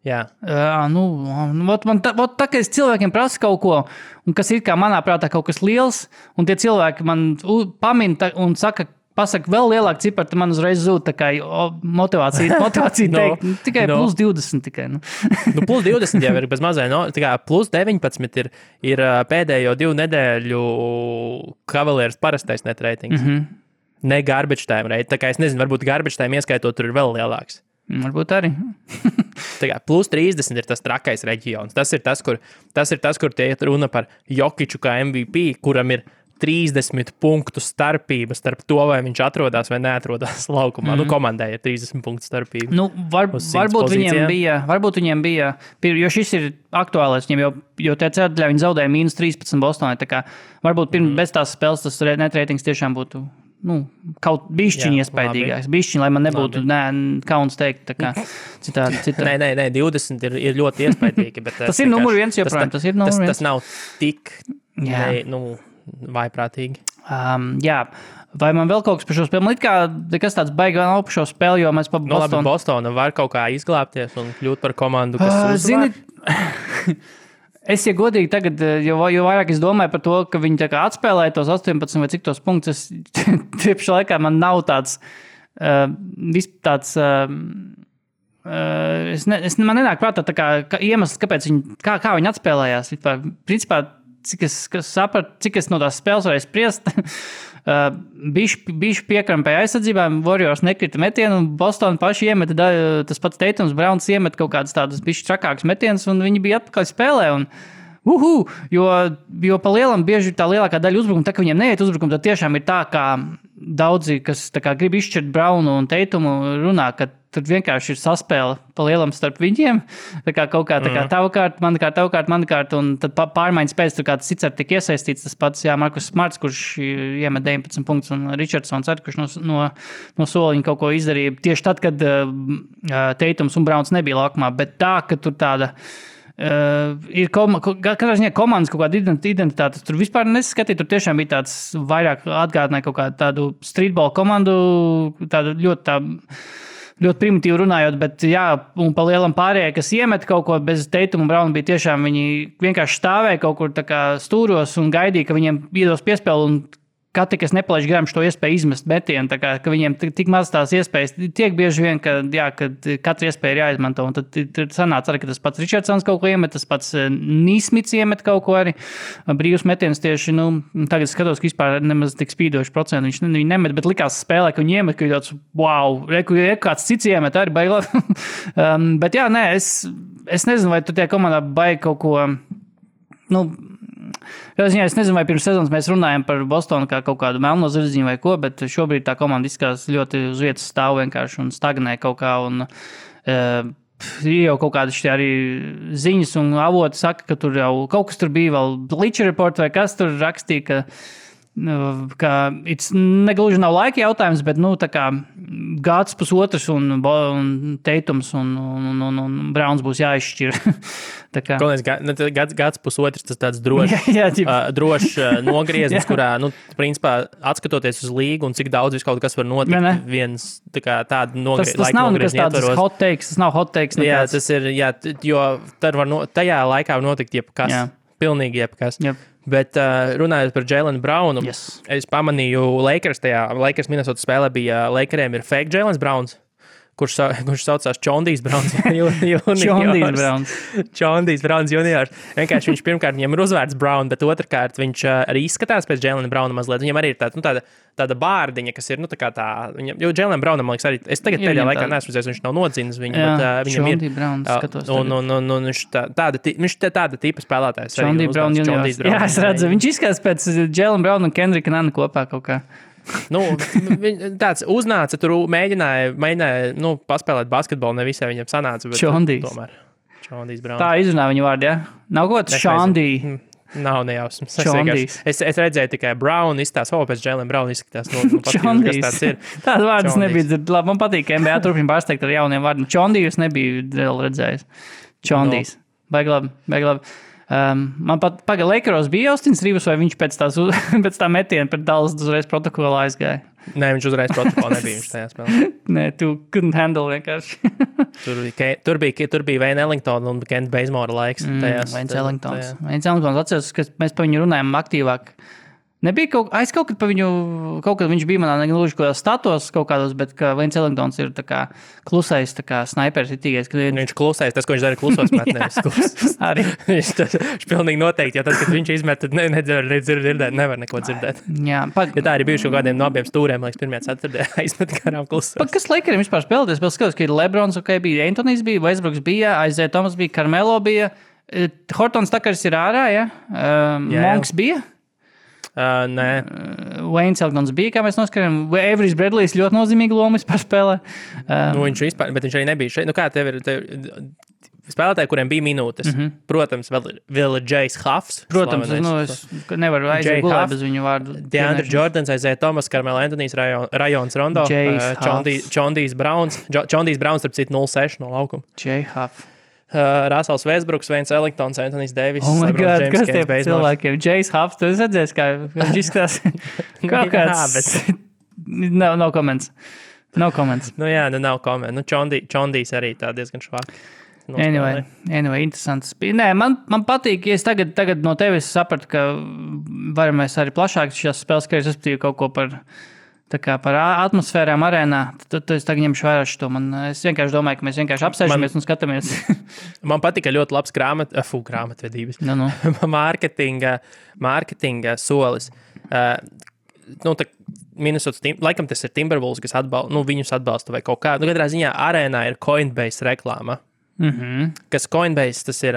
Jā.
Tā kā es cilvēkiem prasu kaut ko, un kas ir kā manā prātā kaut kas liels, un tie cilvēki man pamin un pasaka vēl lielāku ciparu, tad man uzreiz zūd tā kā motivācija teikt. Tikai plus 20 tikai.
Plus 20 jau ir bez mazai. Plus 19 ir pēdējo 2 nedēļu Cavaliers parastais net ratings. Ne garbage time rate. Tā kā es nezinu, varbūt garbage time ieskaitot tur ir vēl lielāks.
Varbūt arī.
Plus 30 ir tas trakais reģions. Tas ir tas, kur tie runa par Jokiču kā MVP, kuram ir 30 punktu starpība starp to, vai viņš atrodas vai neatrodas laukumā. Komandai ir 30 punktu starpība.
Varbūt viņiem bija, jo šis ir aktuālais viņiem, jo tie ceturtajā viņi zaudēja -13 Bostonai. Tā kā varbūt bez tās spēles tas net ratings tiešām būtu kaut bišķiņi iespaidīgāks. Bišķiņi, lai man nebūtu kauns teikt. Tā kā citādi.
Nē, 20 ir ļoti iespaidīgi. Bet
tas ir numur 1 joprojām.
Tas nav tik vaiprātīgi.
Vai man vēl kaut kas par šo spēli? Man kas tāds baigi vēl nav par šo spēli, jo mēs pa Bostonu.
Bostona var kaut kā izglābties un kļūt par komandu, kas uzvar.
Es, ja godīgi tagad, jo vairāk es domāju par to, ka viņi tā kā atspēlēja tos 18 vai cik tos punktus, tiepši laikā man nav tāds man nenāk prātā tā kā iemesls, kāpēc kā viņi atspēlējās. Principā, cik es no tās spēles varēju spriest, bišķi piekrampēja aizsardzībām, Warriors nekrita metienu, un Boston paši iemeta, tas pats Tatums Browns iemet kaut kādas tādas bišķi trakākas metienas, un viņi bija atpakaļ spēlē, un jo pa lielam bieži tā lielākā daļa uzbrukuma, tā ka viņiem neiet uzbrukuma, tad tiešām ir tā, kā daudzi, kas tā kā grib izšķirt Brownu un Tatumu, runā, ka tur vienkārši ir saspēle pa lielam starp viņiem. Tā kā kaut kā tava kārta, mana kārta, un tad pārmaiņas pēc tur kāds cits tik iesaistīts. Tas pats, Markus Smarts, kurš iemet 19 punktus, un Richardsons arī, kurš no soliņa kaut ko izdarīja. Tieši tad, kad Tatums un Browns nebija laukumā, bet tā, ka tur tāda ir katrā ziņā komandas kaut kāda identitāte. Tur vispār nesaskatīja, tur tiešām bija tāds vairāk atgādināja kaut kādu tādu streetball komandu, tādu ļoti primitīvi runājot, bet un pa lielam pārējai, kas iemet kaut ko bez Tatuma un Browna, bija tiešām viņi vienkārši stāvēja kaut kur tā kā stūros un gaidīja, ka viņiem iedos piespēli, un katrs, kas nepalaiž garām šo iespēju izmest metienu, tā kā, ka viņiem tik maz tās iespējas, tiek bieži vien, ka katra iespēja ir jāizmanto, un tad sanāca arī, ka tas pats Richardsons kaut ko iemet, tas pats Nīsmits iemet kaut ko arī, brīvs metiens tieši, tagad skatos, ka vispār nemaz tik spīdoši procentu viņi nemet, bet likās spēlē, ka viņi iemet, ka tāds, wow, kāds cits iemet, arī baigi labi. Bet es nezinu, vai tu tie komandā baigi kaut ko, es nezinu, vai pirms sezonas mēs runājam par Bostonu kā kaut kādu melno zirdziņu vai ko, bet šobrīd tā komanda izskatās ļoti uz vietas stāv vienkārši un stagnē kaut kā. Un, ir jau kaut kādas arī ziņas un avoti saka, ka tur jau kaut kas tur bija vēl Bleacher Report vai kas tur rakstīja, ka negluži nav laika jautājums, bet tā kā gads pusotrs un Tatums un Browns būs jāizšķir.
Gads pusotrs, tas tāds drošs nogrieznis, kurā, principā, atskatoties uz līgu un cik daudz kaut kas var notikt, viens tāda
tas nav nekas tāds hot takes, tas nav hot takes.
Nekāds. Tas ir, jo tajā laikā var notikt jebkas, pilnīgi jebkas. Yep. Bet runājot par Jaylen Brownu, es pamanīju Lakers Minnesota spēlē bija Lakeriem ir fake Jaylen Browns, kurš saucās Čondijs Browns juniors. Čondijs Browns juniors. Vienkārši viņš pirmkārt viņam ir uzvārds Brown, bet otrkārt viņš arī izskatās pēc Jaylen Browna mazliet. Viņam arī ir tāda bārdiņa, kas ir, jo Jaylen Brownam, man liekas, arī, es tagad pēdējā laikā neesmu redzējis, viņš nav nodzīnis viņu, bet viņam ir.
Browns, skatos.
Un viņš tāda tipa spēlētājs.
Čondijs Brown juniors. Jā, es redzu, viņš izskatās pēc Jaylen Browna un Kendrika Nana kopā kaut kā.
Tāds uznāca, tur mēģināja paspēlēt basketbolu, ne visai viņam sanāca, bet tomēr. Šondijs Brauns.
Tā izrunā viņu vārdu, ja? Nav kaut kāds Šondī.
Nav nejausmas. Es redzēju tikai Brown izstās, pēc Jalen Brown izskatās.
Čondijs. Tāds vārds nebija dzird. Labi, man patīk, ka NBA turpina pārsteigt ar jauniem vārdiem. Čondijus nebija vēl redzējis. Čondijs. Baigi labi. Man pat Lakeros bija Austins Rivers, vai viņš pēc tā metiena pret Dallas uzreiz protokolā aizgāja?
Nē, viņš uzreiz protokolā nebija viņš tajā spēlē.
Nē, tu couldn't handle vienkārši.
Tur bija Wayne Ellington un Kent Bazemore laiks.
Wayne Ellingtons. Atceros, ka mēs par viņu runājam aktīvāk. Nebija kaut kad par viņu, kaut kad viņš bija manā negluži kaut kādā statos kaut kādos, bet ka Wayne Ellingtons ir tā kā klusais, tā kā snaiperis itīgais.
Viņš klusais, tas, ko viņš dara klusos met, nevis klusas.
Arī.
Viņš pilnīgi noteikti, jo tad, kad viņš izmet, tad nevar neko dzirdēt.
Jā.
Ja tā arī bijuši kaut kādiem no abiem stūriem, liekas, pirmajā ceturtajā izmet garām klusos.
Kas Lakeriem vispār spēlēties? Vēl skatos, ka ir Lebrons, bija Antonijs bija, Westbrooks bija, Isaiah Thomas bija, Carmelo bija, Hortons Takars ir ārā, ja? Monks bija?
Nē.
Wayne Ellingtons bija, kā mēs noskatījām. Averijs Bradley's ļoti nozīmīgu lomu vispār spēlē.
Bet viņš arī nebija šeit. Kā tev ir spēlētāji, kuriem bija minūtes? Protams, vēl ir Jais Huffs.
Protams, es nevaru aiziet gulēt bez viņu vārdu.
DeAndre Jordans, Isaiah Thomas, Carmelo Anthonijs, Rajons Rondo, Čondijs Browns, starp citu 0-6 no laukuma.
Jay Huff.
Rasels Westbrooks, Wayne Ellingtons, Anthony's Davis.
Oh my God, kas tie cilvēkiem? Jais Huffs, tu redzēsi, kā viņš izskatās kaut kāds... No comments. No comments.
Nav comments. Čondijs arī tā diezgan švāk.
Anyway, interesants. Nē, man patīk, ja es tagad no tevis sapratu, ka varam mēs arī plašāk šās spēles, ka es respektīvi kaut ko par atmosfērām arēnā, tad es tagad ņemšu vērā šo. Es vienkārši domāju, ka mēs vienkārši apsēžamies un skatāmies. Man
patika ļoti labs grāmatvedības.
No.
Mārketinga solis. Minnesota, laikam tas ir Timberwolves, kas viņus atbalsta vai kaut kā. Katrā ziņā arēnā ir Coinbase reklāma. Kas Coinbase, tas ir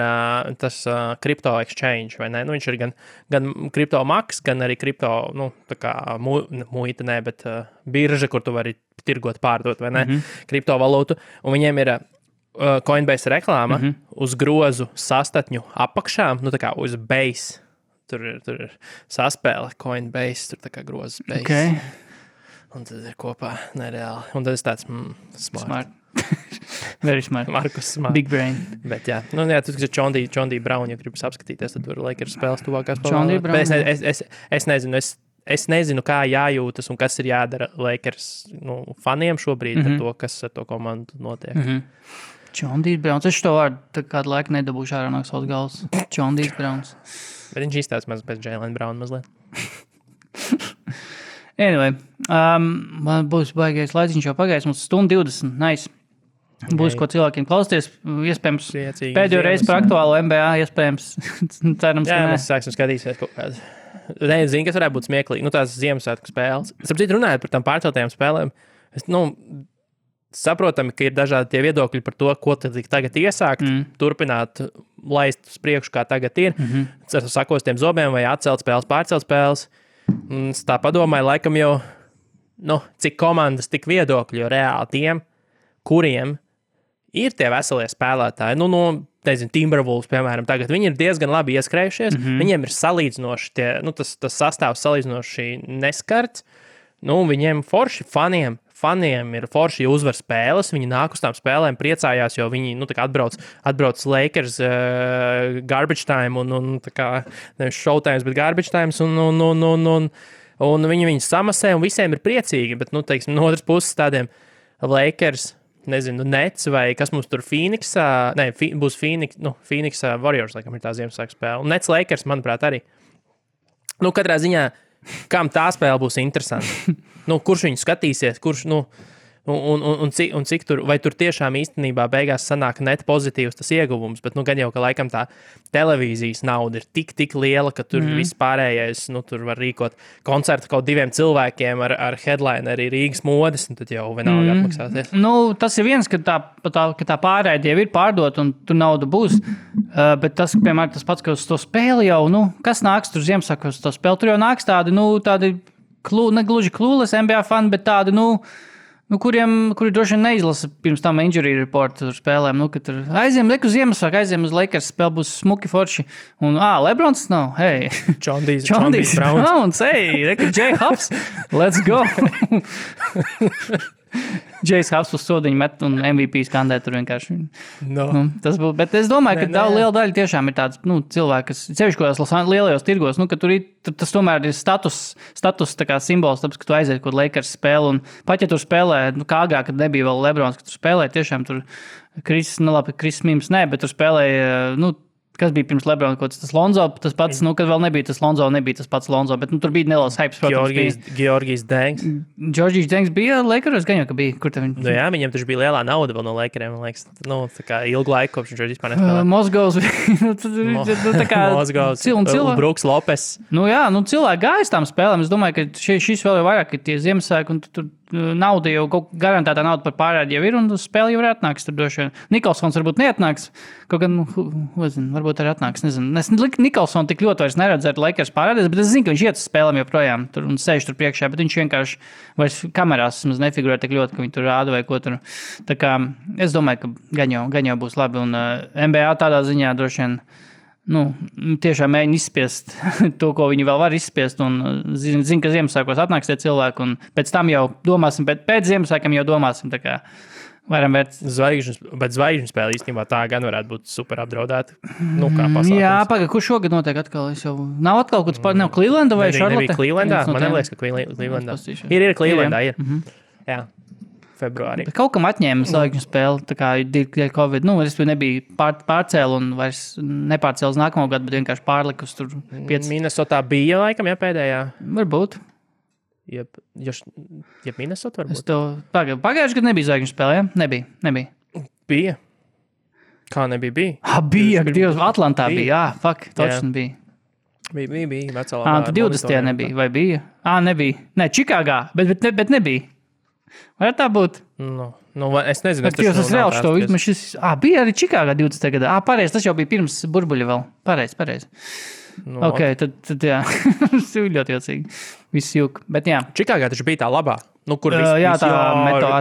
crypto exchange, vai ne? Viņš ir gan crypto maks, gan arī crypto, tā kā muita, ne, bet birža, kur tu vari tirgot, pārdot, vai ne? Kriptovalūtu. Un viņiem ir Coinbase reklāma uz grozu sastatņu apakšā, tā kā uz base. Tur ir saspēle Coinbase, tur tā kā grozas base.
Okay.
Un tad ir kopā nereāli. Un tad es tāds smart.
Very smart.
Markus smart.
Big brain.
Bet jā, tas ir Čondī Brown, ja gribas apskatīties, tad tur Lakers spēles tuvākās.
Čondī Brown.
Es nezinu, kā jājūtas un kas ir jādara Lakers faniem šobrīd ar to, kas ar to komandu notiek.
Čondī Browns. Es šo vārdu kādu laiku nedabūšu ārā no savas galvas. Čondī Browns.
Bet viņš izstāsta maz pēc Jalen Brown mazliet.
Anyway, man būs baigais laiciņš jau pagājis, mums 1:20, nice. Būs ko cilvēkiem klausties, iespējams, pēdējo reizi par aktuālo NBA, iespējams, cerams,
jā, mēs sāksim skatīsies kaut kādu. Nezinu, kas varētu būt smieklīgi, tās Ziemassvētku spēles. Sapratu, runājot par tām pārceltajām spēlēm, saprotami, ka ir dažādi tie viedokļi par to, ko tad tagad iesākt, turpināt laist uz priekšu, kā tagad ir, ar sakostiem zobiem vai atcelt spēles, pārcelt spēles. Es tā padomāju, laikam jau, cik komandas, tik viedokļi, jo reāli tiem, kuriem ir tie veselie spēlētāji, nezinu, Timberwolves, piemēram, tagad viņi ir diezgan labi ieskrējušies, viņiem ir salīdzinoši tie, tas sastāvs salīdzinoši neskarts, viņiem forši faniem ir forši uzvar spēles, viņi nāk uz tām spēlēm, priecājās, jo viņi, atbrauc Lakers garbage time un tā kā, nevis showtimes, bet garbage times un viņi samasē un visiem ir priecīgi, bet, no otras puses tādiem Lakers, nezinu, Nets vai kas mums tur Phoenixā, būs Phoenix Warriors, laikam ir tā Ziemassvētku spēle. Un Nets Lakers, manuprāt, arī. Katrā ziņā, kam tā spēle būs interesanta. Kurš viņu skatīsies, kurš, un cik tur, vai tur tiešām īstenībā beigās sanāk net pozitīvs tas ieguvums, bet gan jau, ka laikam tā televīzijas nauda ir tik liela, ka tur viss pārējais, tur var rīkot koncertu kaut 2 cilvēkiem ar headline arī Rīgas modes, un tad jau vienalga atmaksāties.
Tas ir viens, ka tā pārēdi jau ir pārdot, un tur nauda būs, bet tas, piemēram, tas pats, ka uz to spēli jau, kas nāks tur Ziemassvētkos uz to spēli, tur jau nāks tādi negluži klūles NBA fani, bet tādi, Kuri droši vien neizlasa pirms tam injury report tur spēlēm, ka tur aiziem uz Ziemassvētku, aiziem uz Lakers spēle, būs smuki forši. Un, Lebrons nav, hei.
Čondijs
Browns, hei, Jay Huffs, let's go. Jay's Huffs uz sodiņu met un MVP skandē tur vienkārši.
No.
Tas būtu, bet es domāju, ka liela daļa tiešām ir tāds, cilvēki, kas sevišķi kādās lielajos tirgos, ka tur tas tomēr ir status tā kā simbols, tāpēc, ka tu aiziet, kur Lakers spēle, un pat ja tur spēlē, kā agrāk, kad nebija vēl Lebrons, ka tur spēlē, tiešām tur Kris Mims, bet tur spēlēja, kas bija pirms Lebrona, tas Lonzo, tas pats, kad vēl nebija tas Lonzo, nebija tas pats Lonzo, bet tur bija neliels hypes, protams.
Georgijs Dengs.
Georgijs Dengs bija Lakeros, gan jau, ka bija. Kur tev viņš?
Jā, viņam taču bija lielā nauda vēl no Lakeriem, man liekas. Tā kā ilgu laiku, kopš viņš vispār nespēlē.
Mozgovs. Tā kā
Mozgovs. Brooks Lopes.
Cilvēki gājas tām spēlēm. Es domāju, ka šis vēl ir vairāk, ka tie Ziemassvētki un tur nauda jau, garantētā nauda par pārēdi jau ir, un spēle jau ir atnāks. Tur droši vien Nikolsons varbūt neatnāks, kaut gan, varbūt arī atnāks, nezinu. Es Nikolsonu tik ļoti vairs neredzu ar Lakers pārēdies, bet es zinu, ka viņš iet uz spēlēm joprojām tur un sēž tur priekšā, bet viņš vienkārši vairs kamerās nefigurē tik ļoti, ka viņi tur rāda vai ko tur. Tā kā es domāju, ka gan jau būs labi, un NBA tādā ziņā droši vien tiešām mēģina izspiest to, ko viņi vēl var izspiest, un zin, ka Ziemassvētkos atnāks tie cilvēki, un pēc tam jau domāsim, bet pēc Ziemassvētkiem jau domāsim, tā kā varam vērt.
Zvaigžņu spēle īstenībā tā gan varētu būt super apdraudēta, kā pasākums.
Jā, kur šogad notiek atkal? Nav atkal kaut kāds nav Clevelanda vai Charlotte?
Nebija Clevelandā, man neliekas, ka Clevelandā. Ir Clevelandā, ir. Jā. Februārī.
Bet kaut kam atņēma zvaigžņu spēli, tā kā dēļ Covid. Es nebija pārcēlu un vairs nepārcēlu uz nākamo gadu, bet vienkārši pārlikus tur 5.
Minnesotā bija laikam, pēdējā?
Varbūt.
Jeb Minnesota varbūt?
Pagājuši gadu nebija zvaigžņu spēle, ja? Nebija.
Bija. Kā nebija? Bija.
Bija, Dievs, Atlantā bija. Točni bija.
Bija, vecā.
Tad 20. nebija, vai bija? Nebija. Ne, Čikāgā, bet nebija. Vai tā būtu?
Es nezinu.
Tas reāli šo izmešis. Bija arī Čikāgā 20. gadā. Pareizi, tas jau bija pirms burbuļa vēl. Pareizi. Ok, tad jā. Tas ir ļoti jocīgi. Viss jūk. Bet jā.
Čikāgā taču bija tā labā. Kur
jā, tā meto,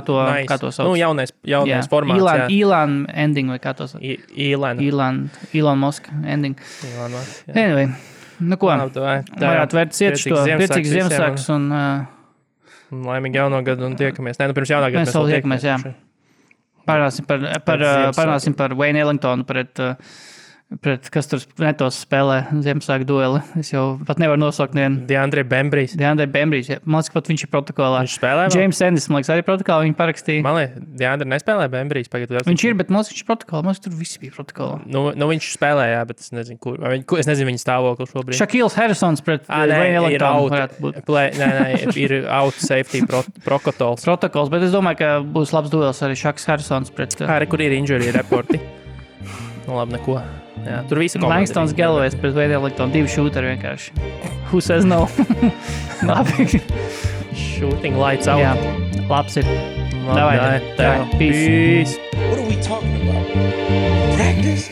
kā to sauc.
Jaunais formāts.
Elon ending vai kā to sauc. Elon Musk ending. Anyway. Ko? Varētu vērt priecīgs Ziemassvētkus un...
Laimīgi jauno gadu un tiekamies. Pirms jaunā gada
mēs vēl tiekamies, jā. Parunāsim par Wayne Ellingtonu pret kas tur netos spēlē Ziemassvētku dueli. Es jau pat nevaru nosaukt nevienu.
DeAndre Bembrijs, jā. Man liekas, pat viņš ir protokolā. Viņš spēlē vēl? James Ennis, man liekas, arī protokolā viņi parakstīja. Man liekas, DeAndre nespēlē Bembrijs.
Viņš ir, bet man liekas, viņš ir protokolā. Man liekas, tur visi bija protokolā.
Viņš spēlē, jā, bet es nezinu, kur. Es nezinu viņa stāvokli šobrīd.
Shaquille Harrisons pret Wayne Ellingtonu varētu būt.
Ir out safety protokols,
bet es domāju, ka būs labs duels arī Shaqs Harrisons pret...
Kur ir injury reporti? Labi, neko. Jā, tur visi komandi.
Langstons Galloway's pret Wayne Ellingtonu, 2 šūteri vienkārši. Who says no? Labi.
Shooting lights out.
Jā, labs ir. Davai.
Peace.
What are we talking about? Practice?